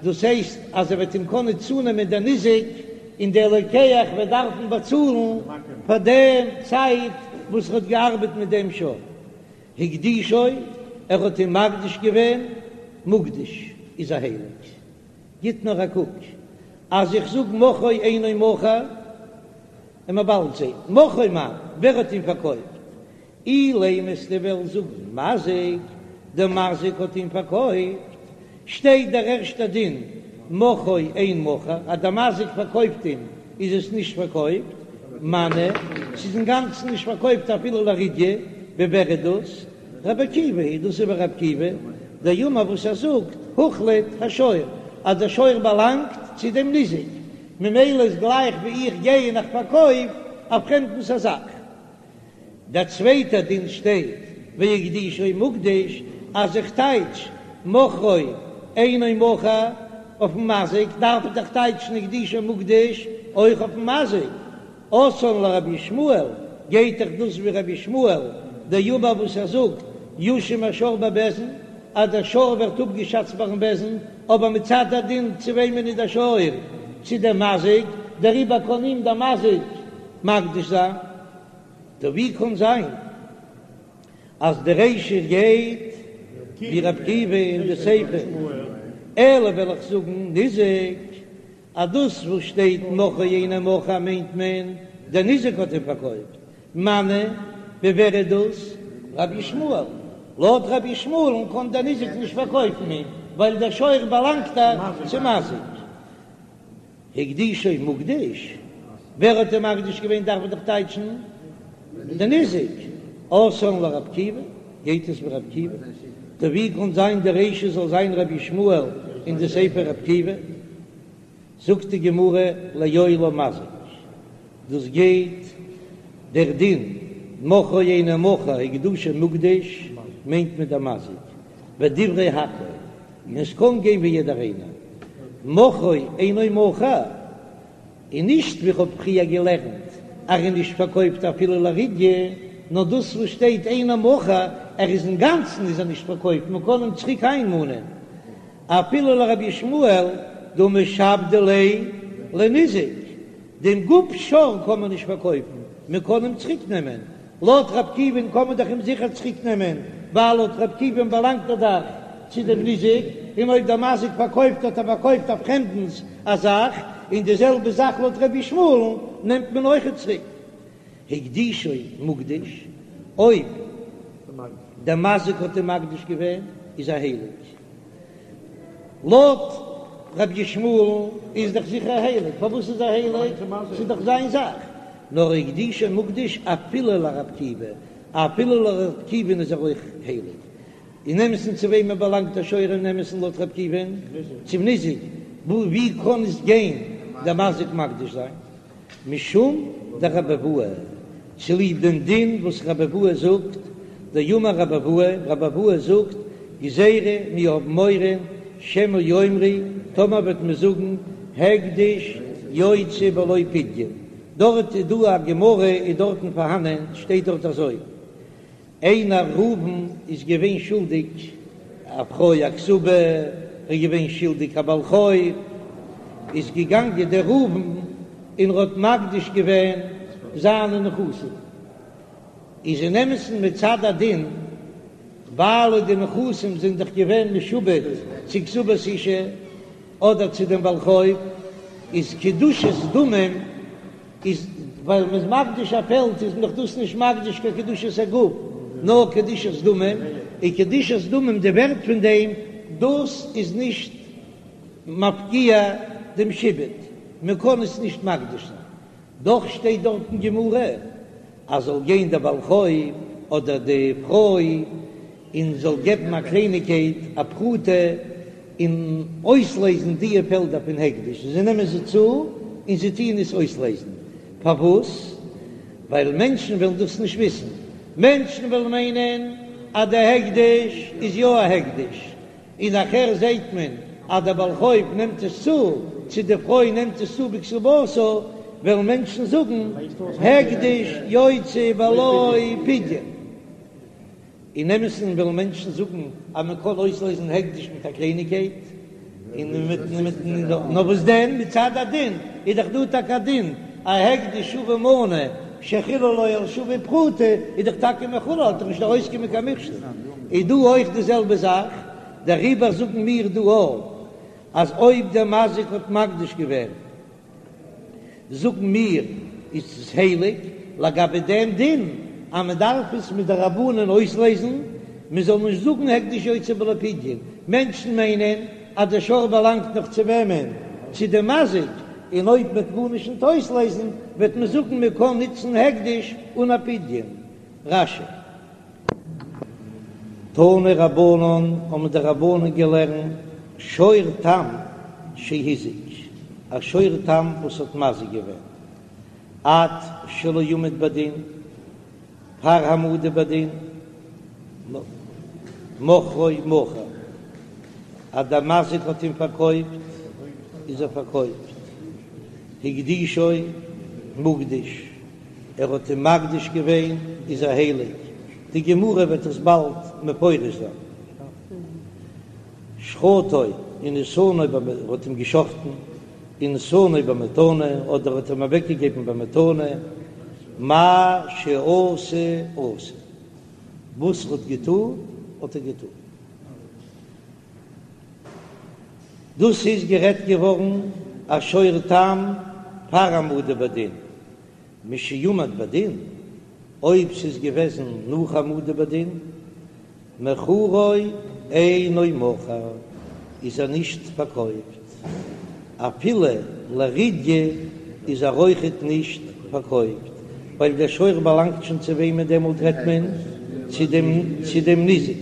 דאס הייסט אז ער וועט אים קענען צונעמען דער ניזק, און דער לוקח וועט דארפן באצאלן פאר דעם צייט וואס ער האט געארבעט מיט דעם שור. הקדישו, ער האט אים מקדיש געווען, מוקדש איז ער הייליג. גיט נאר א קוק, אז איך זאג מכרו אינו מכור, און מען באלד זעט, מכרו מאן, ווער האט אים פארקויפט? אילימא וועסטו וועלן זאגן מזיק, דער מזיק האט אים פארקויפט, שטייט דער ערשטער דין מכרו אין מכור, אז דער מזיק פארקויפט אים איז עס נישט פארקויפט, מני, ס'איז אינגאנצן נישט פארקויפט אפילו לרידיא, ווי ווער איז דאס? רבי עקיבא היא, דאס איז ווי רבי עקיבא, דאמר וואס ער זאגט, הוחלט השור, אז דער שור באלאנגט צו דעם ניזק, ממילא איז גלייך ווי איך גיי און איך פארקויף א פרעמדנס א זאך. דער צווייטער דין שטייט והקדישו מוקדש, אז איך טייטש מכרו אינו מכור אויפן מזיק, דארף איך דאך טייטשן הקדישו מוקדש אויך אויפן מזיק, אתאן לרבי ישמעאל, גייט דאך דאס ווי רבי ישמעאל דאמר וואס ער זאגט יושם השור בבית דין, אז דער שור ווערט אפגעשאצט ביים בית דין, אבער מצד הדין צו וועמען איז דער שור? צו דעם מזיק, דעריבער קען אים דער מזיק מקדיש זיין. טא ווי קאן זיין אז די רישא גייט ווי ר' עקיבא און די סיפא? אלא וועל איך זאגן ניזק, אז דאס וואס שטייט מכרו אינו מכור מיינט מען דער ניזק האט אים פארקויפט, מני, ווי ווער איז דאס? רבי ישמעאל, לויט רבי ישמעאל'ן קען דער ניזק נישט פארקויפן אים, ווייל דער שור באלאנגט דאך צום מזיק. הקדישו מוקדש, ווער האט אים מקדיש געווען דארף מען דאך טייטשן די ניזק, אתאן לרבי עקיבא, גייט עס ווי רבי עקיבא, טא ווי קאן זיין די רישא זאל זיין רבי ישמעאל און די סיפא רבי עקיבא? זאגט די גמרא לעולם מזיק, דאס גייט דער דין מכרו אינו מכור הקדושו מוקדש מיינט מען דער מזיק, ודברי הכל, און עס קען גיין ווי יעדער איינער, מכרו אינו מכור, און נישט ווי כ'האב פריער געלערנט אז ער איז נישט פארקויפט אפילו לרידיא, נאר דאס וואס שטייט אינו מכור, ער איז אינגאנצן איז ער נישט פארקויפט, מען קען אים צוריק איינמאנען אפילו לרבי ישמעאל דהא משעבדי ליה לניזק, דעם גוף שור קען מען נישט פארקויפן, מען קען אים צוריק נעמען, לויט ר' עקיבא'ן קען מען דאך אים זיכער צוריק נעמען, ווייל לויט ר' עקיבא'ן באלאנגט ער דאך צו דעם ניזק, און אויב דער מזיק פארקויפט האט ער פארקויפט א פרעמדנס א זאך, און די זעלבע זאך לויט רבי ישמעאל'ן נעמט מען אויכעט צוריק. הקדישו מוקדש, אויב דער מזיק האט אים מקדיש געווען איז ער הייליג. לויט רבי ישמעאל'ן איז דאך זיכער הייליג, פארוואס איז ער הייליג? ס'איז דאך זיין זאך. נאר הקדישו מוקדש אפילו לר' עקיבא, אפילו לר' עקיבא'ן איז ער אויך הייליג. אין אמת'ן צו וועמען באלאנגט דער שור אין אמת'ן לויט ר' עקיבא'ן? צום ניזק. ווי קען עס גיין דער מזיק מקדיש זיין? משום דרבי אבהו, צוליב דעם דין וואס רבי אבהו זאגט, דאמר רבי אבהו, רבי אבהו זאגט, גזירה, מיר האבן מורא, שמא יאמרו, טאמער וועט מען זאגן, הקדש יוצא בלא פדיון, דארט איז דא א גמרא איז דארטן פארהאנען, שטייט דארט אזוי, איינער ראובן איז געווען שולדיג א פרוי א כתובה, ער איז געווען שולדיג א בעל חוב, איז געגאנגען דער ראובן און ער האט מקדיש געווען זיינע נכסים, איז אין אמת'ן מצד הדין, ווייל די נכסים זענען דאך געווען משועבד צו כתובת אשה אדער צו דעם בעל חוב, איז קדושת דמים איז ווייל מ'איז מקדיש א פעלד איז מען דאך דאס נישט מקדיש קיין קדושת הגוף נאר קדושת דמים, און קדושת דמים די ווערט פון דעם דאס איז נישט מפקיע דעם שעבוד, מען קען עס נישט מקדיש זיין, דאך שטייט דארט אין גמרא אז זאל גיין דער בעל חוב אדער די פרוי און זאל געבן א קלייניגקייט א פרוטה און אויסלייזן דיע פעלדער פון הקדש, זיי נעמען זיי צו און זיי טוען עס אויסלייזן, פארוואס? ווייל מענטשן וועלן דאס נישט וויסן, מענטשן וועלן מיינען אז די הקדש איז יא א הקדש, און נאכער זעהט מען אז דער בעל חוב נעמט עס צו, צו די פרוי נעמט עס צו בכתובתה, וועלן מענטשן זאגן הקדש יוצא בלא פדיון. אין אמת'ן וועלן מענטשן זאגן אז מען קען אויסלייזן הקדש מיט א קלייניגקייט. און מיט מיט נאר וואס דען מצד הדין איז דאך דא טאקע א דין א הקדש שווה מנה שחיללו על שווה פרוטה איז דאך טאקע מחולל האט דאך נישט ארויסגעקומען קיין מכשול איז דא אויך די זעלבע זאך דעריבער זאגן מיר דא אויך אז אויב דער מזיק האט מקדיש געווען זאגן מיר איז עס הייליג לגבי דעם דין אז מען דארף עס מדרבנן אויסלעזן, מען זאל נישט זאגן הקדש יוצא בלא פדיון, מענטשן מיינען אז דער שור באלאנגט נאך צו וועמען? צו דעם מזיק, און אויב מען וועט גארנישט נישט אויסלעזן וועט מען זאגן מען קען נוצן הקדש אן א פדיון. רש"י. תנו רבנן האבן די רבנן געלערנט שור תם שהזיק, א שור תם וואס האט מזיק געווען עד שלא עמד בדין, פאר העמדה בדין, מכרו מכור, אז דער מזיק האט אים פארקויפט איז ער פארקויפט, הקדישו מוקדש. ער האט אים מקדיש געווען איז ער הייליג, די גמרא וועט עס באלד מפרש זיין. שחטו ונתנו ער האט אים געשחטן, ונתנו במתנה אדער האט אים אוועקגעגעבן במתנה, מה שעשה עשוי, וואס ער האט געטון האט ער געטון. דאס איז גערעדט געווארן א שור תם פאר העמדה בדין, משעמד בדין, אויב ס'איז געוועזן נאך העמדה בדין, מכרו אינו מכור, איז ער נישט פארקויפט, אפילו לרדיא איז ער אויכעט נישט פארקויפט, ווייל דער שור באלאנגט שוין צו וועמען דעמאלט רעדט מען צו דעם צו דעם ניזק.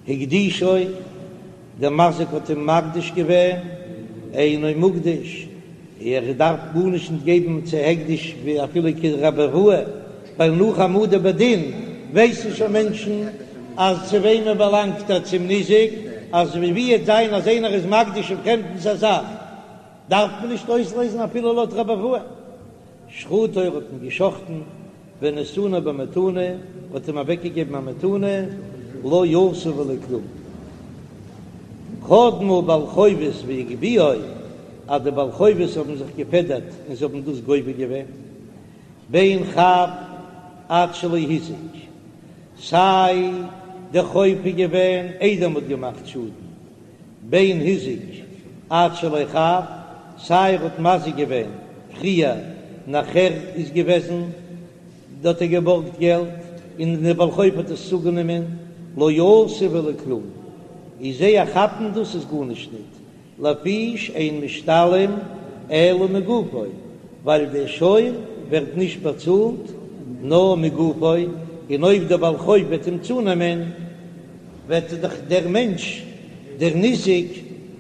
הקדישו, דער מזיק האט אים מקדיש געווען, אינו מוקדש, ער דארף גארנישט נישט געבן צו הקדש ווי אפילו כרבי אבהו, ווייל נאך העמדה בדין ווייסן שוין מענטשן אז צו וועמען באלאנגט ער, צום ניזק, אז ווי וועט זיין אז איינער איז מקדיש א פרעמדנס א זאך דארף מען נישט אויסלעזן אפילו לויט רבי אבהו. שחטו ער האט אים געשחטן, ונתנו במתנה, האט אים אוועקגעגעבן א מתנה, לא עשה ולא כלום. קדמו בעלי חובות והגביהו, אז די בעלי חובות האבן זיך געפעדערט און זיי האבן דאס גובה געווען, בין חב עד שלא הזיק, סיי די חוב איז געווען איידער מ'האט געמאכט שאדן, בין הזיק עד שלא חב, סיי ער האט מזיק געווען פריער נאכער איז געוועזן האט ער געבארגט געלט און דער בעל חוב האט עס צוגענומען לא עשה ולא כלום איז זיי כאפן דאס איז גארנישט ניט לפי שאין משתלם אלא מגופו ווייל דער שור ווערט נישט באצאלט נאר מגופו און אויב דער בעל חוב וועט אים צונעמען וועט דאך דער מענטש דער ניזק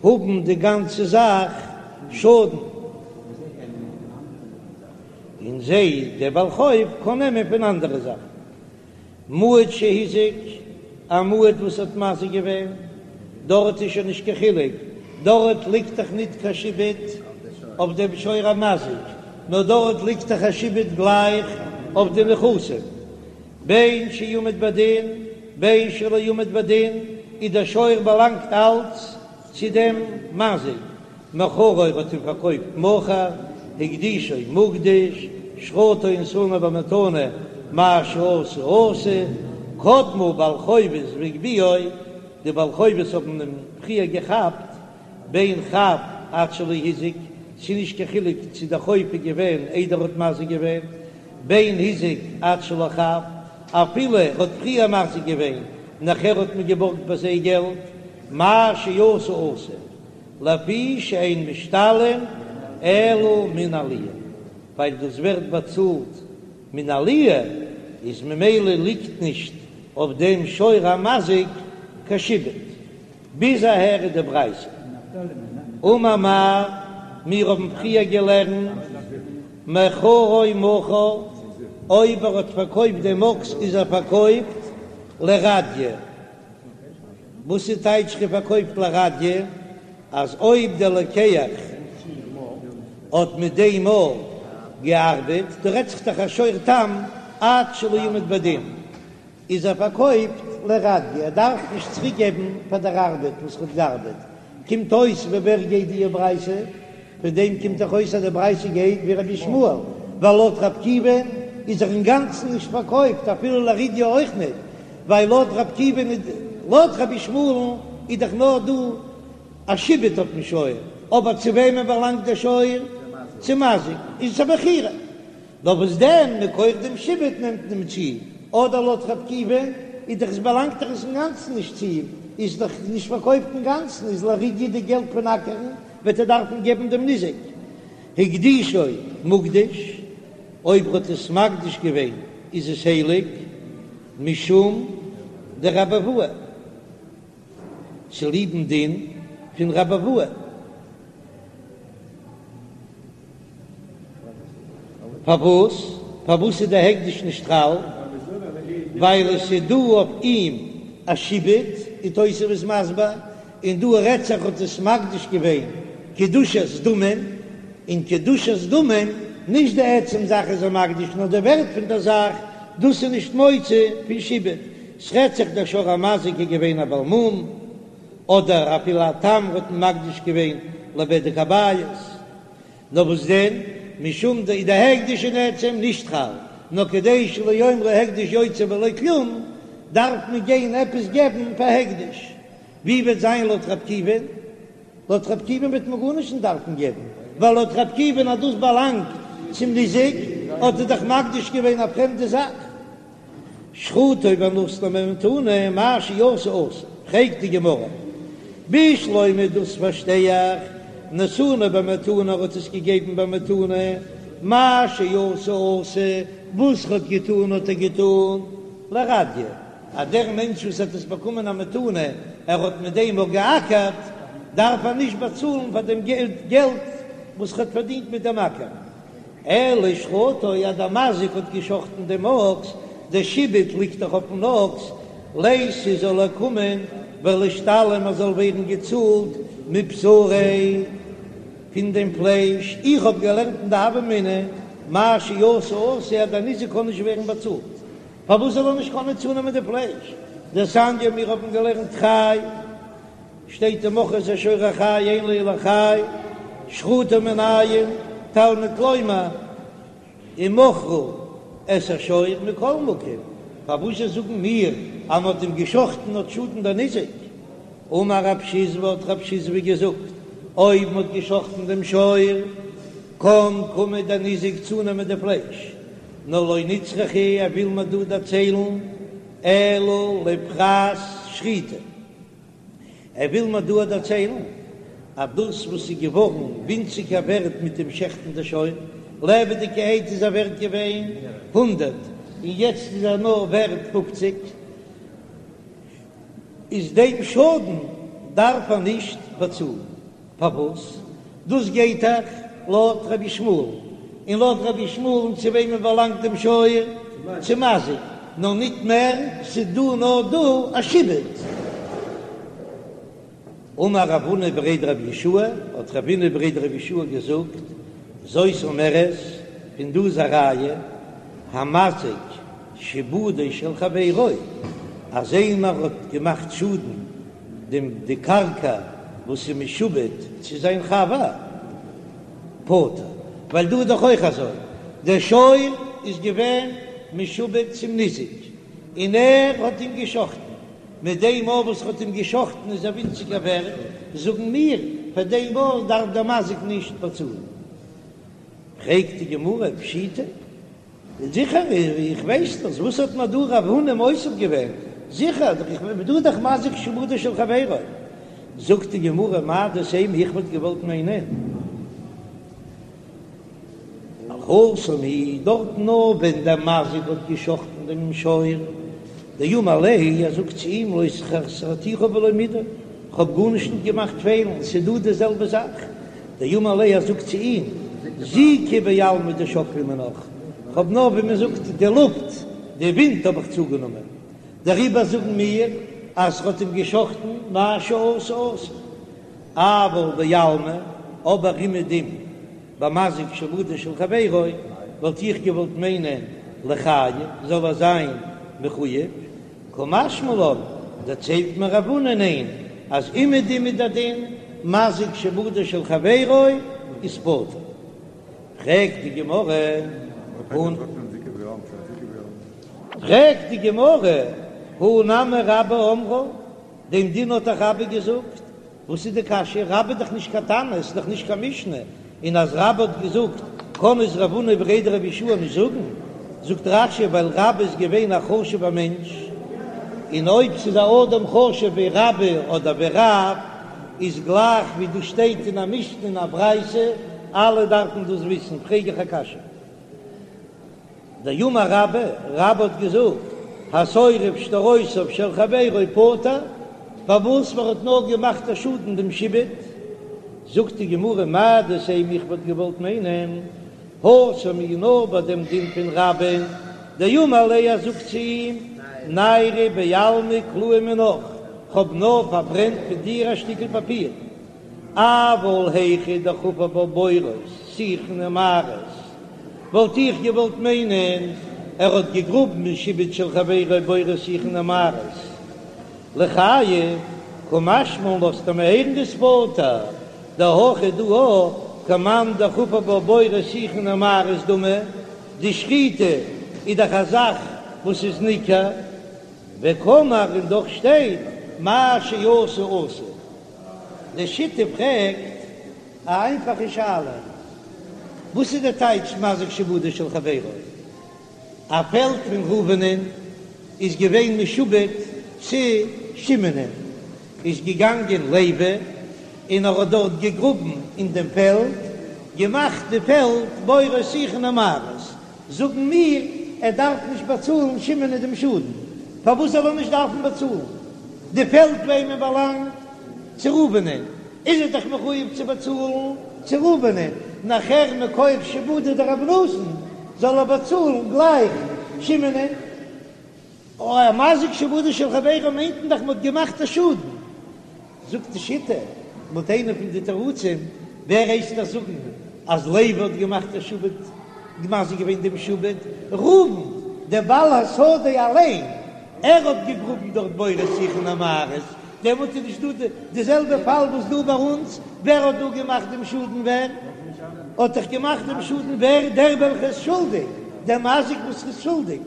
האבן די גאנצע זאך שאדן, און זיי דער בעל חוב קען נעמען פון אנדערע זאכן. מועד שהזיק, א מועד וואס האט מזיק געווען, דארט איז שוין נישט קיין חילוק, דארט ליגט דאך ניט קיין שעבוד אויף דעם שור המזיק, נאר דארט ליגט דאך א שעבוד גלייך אויף די נכסים. בין שעמד בדין בין שלא עמד בדין, איז דער שור באלאנגט אלץ צו דעם מזיק, מכרו ער האט אים פארקויפט מכור, הקדישו מוקדש, שחטו ונתנו במתנה, מה שעשה עשוי, קדמו בעלי חובות והגביהו, די בעלי חובות האבן אים פריער געכאפט, בין חב עד שלא הזיק, ס'איז נישט קיין חילוק צו דער חוב איז געווען איידער ער האט מזיק געווען, בין הזיק עד שלא חב, אפילו ער האט פריער מזיק געווען, נאכער האט מען געבארגט ביי זיי געלט, מה שעשה עשוי, לפי שאין משתלם אלא מן העליה, ווייל דאס ווערט באצאלט מן העליה, איז ממילא ליגט נישט אויף דעם שור המזיק קיין שעבוד. ביז אהער איז די ברייתא. אמר מר, מיר האבן פריער געלערנט מכרו מכור, אויב ער האט פארקויפט דעם אקס איז ער פארקויפט לרדיא. וואס איז טייטש פארקויפט לרדיא? אז אויב דער לוקח האט מיט דעם מאל געארבעט, דא רעדט זיך דאך א שור תם עד שלא עמד בדין, איז ער פארקויפט לרדיא, ער דארף נישט צוריק געבן פאר דער ארבעט וואס ער האט געארבעט. קומט אויס ווי ווער גייט די ברייתא? פון דעם קומט דאך אויס אז די ברייתא גייט ווי רבי ישמעאל, ווייל לויט רבי עקיבא'ן איז ער אינגאנצן נישט פארקויפט אפילו לרדיא אויך ניט, ווייל לויט רבי עקיבא'ן איז לויט רבי ישמעאל'ן איז דאך נאר דא א שעבוד אויפן שור, אבער צו וועמען באלאנגט דער שור? צום מזיק, איז עס א מכירה. נאר וואס דען, מכח דעם שעבוד נעמט מען אים צו, אדער לויט רבי עקיבא'ן איז דאך עס באלאנגט דאך עס אינגאנצן נישט צו אים, איז דאך נישט פארקויפט אינגאנצן, איז לרדיא די געלט פון אקערן וועט ער דארפן געבן דעם ניזק. הקדישו מוקדש, אויב ער האט עס מקדיש געווען איז עס הייליג, משום דרבי אבהו, צוליבן דין פון רבי אבהו. פארוואס? פארוואס איז די הקדש נישט חל? ווייל עס איז דא אויף אים א שעבוד, ווי תוספות איז מסביר, און דא רעדט זיך האט עס מקדיש געווען קדושת דמים, און קדושת דמים, נישט די עצם זאך איז ער מקדיש נאר די ווערט פון דער זאך, דאס איז נישט מוציא פון שעבוד, ס'רעדט זיך דער שור המזיק איז געווען א בעל מום, אדער אפילו א תם האט מען מקדיש געווען לבדק הבית. נאר וואס דען, משום די די הקדש אין עצם נישט חל, נאר כדי שלא יאמרו הקדש יוצא בלא כלום, דארף מען גיין עפעס געבן פאר הקדש. ווי וועט זיין לויט רב עקיבא'ן? לויט רב עקיבא'ן וועט מען גארנישט נישט דארפן געבן, ווייל לויט רב עקיבא'ן אז דאס באלאנגט צום ניזק, האט ער דאך מקדיש געווען א פרעמדע זאך. שחטו ונתנו במתנה, מה שעשה עשוי. פרעגט די גמרא, בשלמא דאס פארשטיי איך, נתנו במתנה ער האט עס געגעבן במתנה, מה שעשה עשוי, וואס ער האט געטון האט ער געטון, לרדיא, אז דער מענטש וואס האט עס באקומען א מתנה, ער האט מיט דעם אויך געאקערט, דארף ער נישט באצאלן פאר דעם געלט וואס ער האט פארדינט מיט דעם אקער. אלא שחטו אז דער מזיק האט געשחטן דעם אקס, דער שעבוד ליגט דאך אויפן אקס, ליתי זאל ער קומען ולישתלם ער זאל ווערן געצאלט מבשריה פון דעם פלייש, איך האב געלערנט אין די הוה אמינא מה שעשה עשוי אז דער ניזק קען נישט ווערן באצאלט, פארוואס זאל ער נישט קענען צונעמען די פלייש? דתניא מיר האבן געלערנט חי. שטייט ומכרו את השור החי אין לו אלא חי, שחטו מנין, תלמוד לומר ומכרו את השור מכל מקום, פארוואס זשע זאגן מיר אז מ'האט אים געשחטן האט שאדן דער ניזק? אמר רב שיזבי האט רב שיזבי געזאגט אויב מ'האט געשחטן דעם שור קען קומען דער ניזק צונעמען די פלייש, נאר לא נצרכא ער וויל מיר דא דערציילן אלא לפרס שחיטה. ער וויל מיר דא דערציילן אז דאס וואס איז געווארן ווינציגער ווערט מיט דעם שעכטן די שור, לעבעדיגערהייט איז ער ווערט געווען הונדרעט און יעצט איז ער נאר ווערט פופציג, איז דעם שאדן דארף ער נישט באצאלן. פארוואס? דאס גייט דאך לויט רבי ישמעאל, און לויט רבי ישמעאל'ן צו וועמען באלאנגט דעם שור? צום מזיק, נאר ניט מער, ס'איז דא נאר דא א שעבוד. אמר רב הונא בריה דרב יהושע, האט רב הונא בריה דרב יהושע געזאגט, זאת אומרת, פון דא איז א ראיה, המזיק שעבודו של חברו, אז איינער האט געמאכט שאדן דעם די קרקע וואס איז משועבד צו זיין חבר פטור, ווייל דא איז דאך אויך אזוי, דער שור איז געווען משועבד צום ניזק און ער האט אים געשחטן, מיט דעם מאל וואס ער האט אים געשחטן איז ער ווינציגער ווערט, זאגן מיר, פאר דעם מאל דארף דער מזיק נישט באצאלן. פרעגט די גמרא, פשיטא? זיכער, איך ווייס דאס, וואס האט מיר דא רב הונא מוסיף געווען? זיכער, איך בין דא דאך מזיק שעבודו של חברו. זאגט די גמרא, מהו דתימא, איך וואלט געוואלט מיינען, התם הוא, דארט נאר ווען דער מזיק האט געשחטן דעם שור, דאמר ליה, ער זאגט צו אים, לא חסרתיך בלא מידי, כ'האב גארנישט נישט געמאכט פעלן, ס'איז דא די זעלבע זאך. דאמר ליה ער זאגט צו אים, זיקא בעלמא דשקלי מינך, כ'האב נאר ווי מען זאגט די לופט, די ווינט האב איך צוגענומען, דעריבער זאגן מיר אז ר'האט אים געשחטן מה שעשה עשוי, אבל בעלמא, אבער אומעדום במזיק שעבודו של חברו, וואלט איך געוואלט מיינען ליחייב זאל ער זיין מחוייב, קא משמע לן, דערציילט מיר רב הונא ניין, אז אומעדום איז דער דין. מזיק שעבודו של חברו איז פטור. פרעגט די גמרא, פרעגט די גמרא, הא נמי רבה אמרה, דעם דין האט דאך רבה געזאגט, וואס איז די קשיא? רבה איז דאך נישט קיין תנא, עס איז דאך נישט קיין משנה, און אז רבה האט געזאגט קען עס רב הונא בריה דרב יהושע נישט זאגן, זאגט רש"י ווייל רבה איז געווען א חשוב'ער מענטש, און אויב ס'איז א אדם חשוב ווי רבה אדער ווי רב, איז גלייך ווי דאס שטייט אין א משנה אין א ברייתא, אלע דארפן דאס וויסן, פרעג איך א קשיא. דאמר רבה, רבה האט געזאגט, השורף שטרותיו של חברו פטור, פארוואס מען האט נאר געמאכט א שאדן דעם שעבוד, זאגט די גמרא מהו דתימא איך וואלט געוואלט מיינען, התם איז נאר ביי דעם דין פון רבה'ן, דאמר ליה ער זאגט צו אים, ניירא בעלמא קלאי מינך, כ'האב נאר פארברענט פון דיר א שטיקל פאפיר. אבל היכא דחפר בה בורות שיחין ומערות, וואלט איך געוואלט מיינען ער האט געגראבן אין שעבוד של חברו בורות שיחין ומערות ליחייב, קא משמע לן לאזט ער מיר הערן דאיז פטור, דהכא דא כמאן דחפר בה בורות שיחין ומערות דמי, די שחיטה איז דאך א זאך וואס איז ניכר, וקאמר און דאך שטייט מה שעשה עשוי. די שיטה פרעגט א איינפאכע שאלה, וואס איז די טייטש מזיק שעבודו של חברו? א פעלד פון ראובנ'ען איז געווען משועבד צו שמעונ'ען, איז געגאנגען לוי און ער האט דארט געגראבן אין דעם פעלד, געמאכט די פעלד בורות שיחין ומערות, זאגן מיר, ער דארף נישט באצאלן שמעונ'ען דעם שאדן. פארוואס זאל ער נישט דארפן באצאלן? די פעלד וועמען באלאנגט? צו ראובנ'ען. איז ער דאך מחויב צו באצאלן צו ראובנ'ען. נאכער מכח שעבודא דרבי נתן זאל ער באצאלן גלייך שמעונ'ען. אוי, א מזיק שעבודו של חברו מיינט מען דאך מ'האט געמאכט א שאדן. זאגט די שיטה, לויט איינע פון די תירוצים, ווער הייסט דאס זאגן אז לוי האט געמאכט א שעבוד, מזיק געווען דעם שעבוד? ראובן, דער בעל השדה אליין, ער האט געגראבן דארט בורות שיחין ומערות, דעמאלט איז נישט דא די זעלבע פאל וואס דא ביי אונז, ווער האט דא געמאכט דעם שאדן ווער האט דאך געמאכט דעם שאדן ווער דער וועלכער איז שולדיג, דער מזיק וואס איז שולדיג.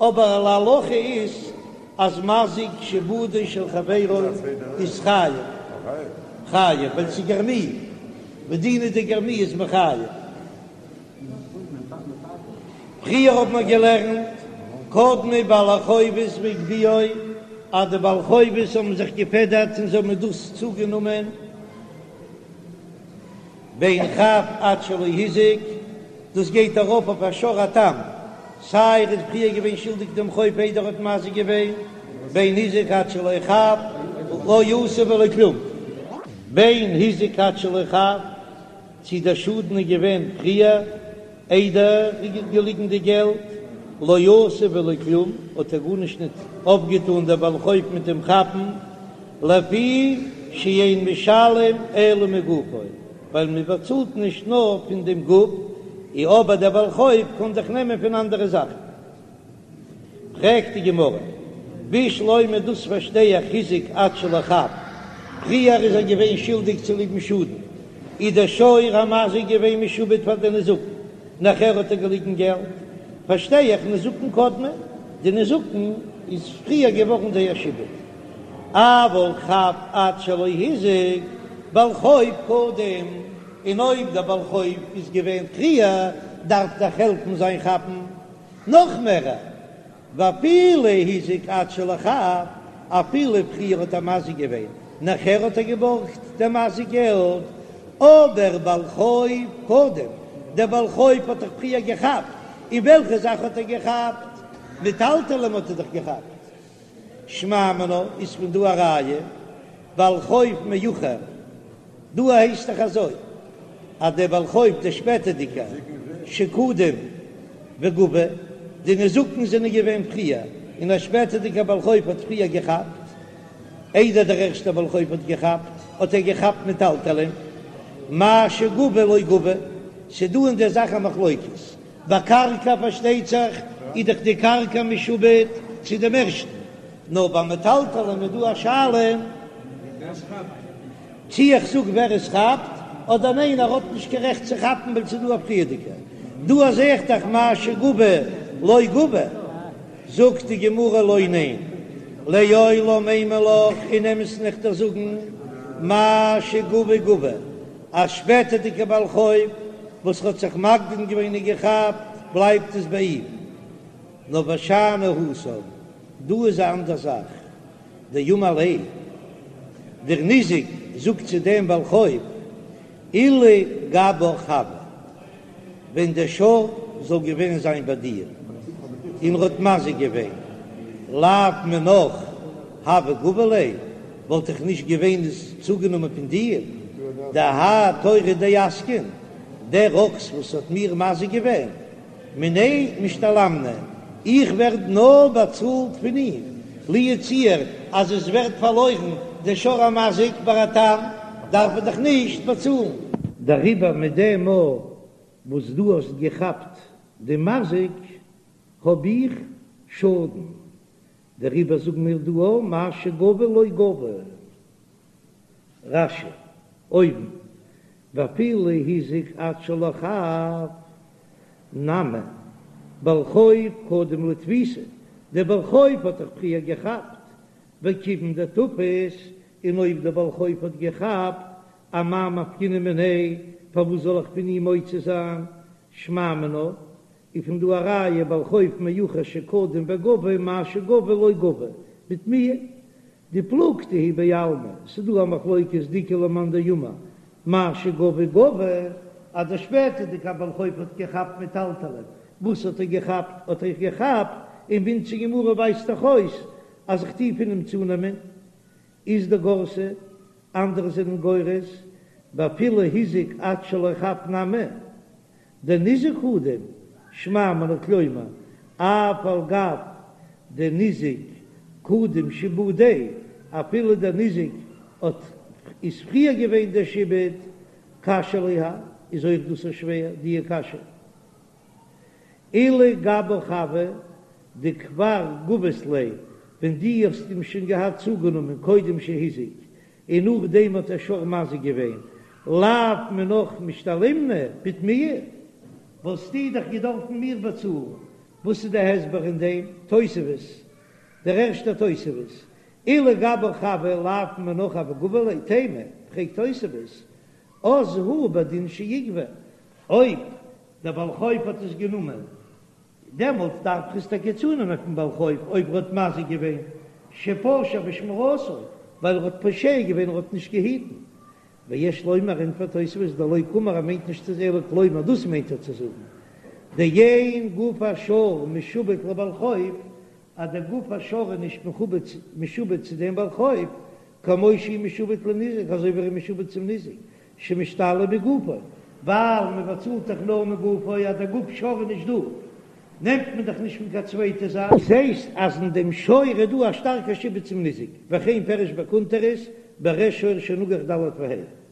אבער להלכה איז אז מזיק שעבודו של חברו איז חייב, חייב ווייל ס'איז גרמי, ודינא דגרמי איז מחייב. פריער האט מען געלערנט קדמו בעלי חובות והגביהו, אז די בעלי חובות האבן זיך געפעדערט און זיי האבן דאס צוגענומען, בין חב עד שלא הזיק, דאס גייט ארויף אויף א שור התם, סיי ער איז פריער געווען שולדיג דעם חוב איידער ער האט מזיק געווען, בין הזיק עד שלא חב, לא עשה ולא כלום, בין הזיק עד שלא חב, צי דער שאדן איז געווען פריער איידער ער איז געליגן די געלט, לא עשה ולא כלום, האט ער גארנישט ניט אויפגעטאן דער בעל חוב מיט דעם כאפן, לפי שאין משלם אלא מגופו, ווייל מען באצאלט נישט נאר פון דעם גוף, אי אבער דער בעל חוב קען זיך נעמען פון אנדערע זאכן. פרעגט די גמרא, בשלמא דאס פארשטיי איך הזיק עד שלא חב, פריער איז ער געווען שולדיג צוליבן שאדן, איז דער שור המזיק געווען משועבד פאר די נזקין, נאכער האט ער געליגן געלט, פארשטיי איך נזקין קדמו, די נזקין איז פריער געווארן זייער שעבוד. אבל חב עד שלא הזיק, בעל חוב קודם, און אויב דער בעל חוב איז געווען פריער, דארף דאך העלפן זיין כאפן נאך מערער, ואפילו הזיק עד שלא חב, אפילו פריער האט ער מזיק געווען, נאכער האט ער געבארגט דער מזיק געלט, אבער בעל חוב קודם, דער בעל חוב האט דאך פריער געכאפט, און וועלכע זאך האט ער געכאפט? מטלטלים האט ער דאך געכאפט. שמע מינה איז פון דא א ראיה, בעל חוב מאוחר, דא הייסט דאך אזוי אז דער בעל חוב דער שפעטערדיגער שקדם וגבה, די נזקין זענען געווען פריער און א שפעטערדיגער בעל חוב האט פריער געכאפט, איידער דער ערשטער בעל חוב האט געכאפט, האט ער געכאפט מטלטלין, מה שגבה לא גבה, ס'דא אין דער זאך א מחלוקת, ביי קרקע פארשטייט זיך איז דאך די קרקע משועבד צו דעם ערשטן, נאר ביי מטלטלין איז דא א שאלה. צי איך זאג ווער עס כאפט, אדער ניין ער האט נישט קיין רעכט צו כאפן ווייל ס'איז דא א פריערדיגער. דא זעה איך דאך מה שגבה לא גבה. זאגט די גמרא לא ניין, לעולם אימא לך אין אמת'ן איך דיר זאגן מה שגבה גבה, א שפעטערדיגער בעל חוב וואס האט זיך מקדים געווען און געכאפט בלייבט עס ביי אים, נאר ושאני התם, דא איז א אנדער זאך, דאמר ליה, דער ניזק זאגט צו דעם בעל חוב, אילו גבך הוה, ווען דער שור זאל געווען זיין ביי דיר, און ר'האט מזיק געווען, לאו מינך הוה גבי ליה, וואלט איך נישט געווען עס צוגענומען פון דיר, דהאי תורא דאסקין, דער אקס וואס האט מיר מזיק געווען, מיניה משתלמנא, איך ווער נאר באצאלט פון אים, לו יצוייר אז עס ווערט פארלוירן דער שור המזיק ביי א תם, דארף ער דאך נישט באצאלן. דעריבער מיט דעם מאל וואס דו האסט געכאפט די מזיק האב איך שאדן, דעריבער זאגן מיר דא א מה שגבה לא גבה. רש"י, אויבן, ואפילו הזיק עד שלא חף, נמי, בעל חוב קדם לתפיסה, דער בעל חוב האט דאך פריער געכאפט, וכיוון דתפס, און אויב דער בעל חוב האט געכאפט, אמאי מפקינן מיניה, פארוואס זאל איך פון אים מוציא זיין, שמע מינה, איז פון דא א ראיה בעל חוב מאוחר שקדם וגבה מה שגבה לא גבה, בתמיה דפלוגתא היא בעלמא, ס'איז דא א מחלוקת דאיכא למאן דאמר מה שגבה גבה, אז דער שפעטערדיגער בעל חוב האט געכאפט מטלטלין, וואס האט ער געכאפט? האט ער געכאפט און ווי אונזער גמרא ווייזט דאך אויס אז איך טוה פון אים צונעמען, אית דגרסי, אנדערע זענען גורס, ואפילו הזיק עד שלא חף נמי, דניזק קדים, שמע מינה כלומר, אף על גב דניזק קדים שעבודיה, אפילו דער ניזק האט איז פריער געווען דער שעבוד, קשיא לי האי, איז אויך דאס א שווער דיע קשיא. אילו גבך הוה דכבר גבית ליה, ווען דו האסט אים שוין געהאט צוגענומען קודם שהזיק, און נאכדעם האט דער שור מזיק געווען, לאו מינך משתלמנא בתמיה, וואלסטו דאך געדארפן מיר באצאלן, וואס איז די הסבר אין דעם תוספות, דער ערשטער תוספות, אילו גבך הוה לאו מינך הוה גבי ליה, תימה, פרעגט תוספות, אז הוא בדין שיגבה, אויב דער בעל חוב האט עס גענומען דעמאלט דארף איך עס טאקע צונעמען פון בעל חוב אויב ער האט מזיק געווען שפשע בשמירתו, ווייל ער האט פושע געווען ער האט נישט געהיטן. ויש לומר ענטפערט תוספות דלא קאמר ער מיינט נישט צו אלא כלומר דאס מיינט ער צו זאגן דאין גוף השור משועבד לבעל חוב אז דער גוף השור איז נישט מכובד משועבד צו דעם בעל חוב כמו שהוא משועבד לניזק אזוי ווי ער איז משועבד צום ניזק שמשתלם מגופו, ווייל מען באצאלט דאך נאר מגופו, אז דער גוף שור איז נישט דא, נעמט מען דאך נישט פון קיין צווייטע זאך. דאס הייסט אז אין דעם שור איז דא א שטארקע שעבוד צום ניזק, וכן פירש בקונטרס בריש שור שנגח ד' וה'.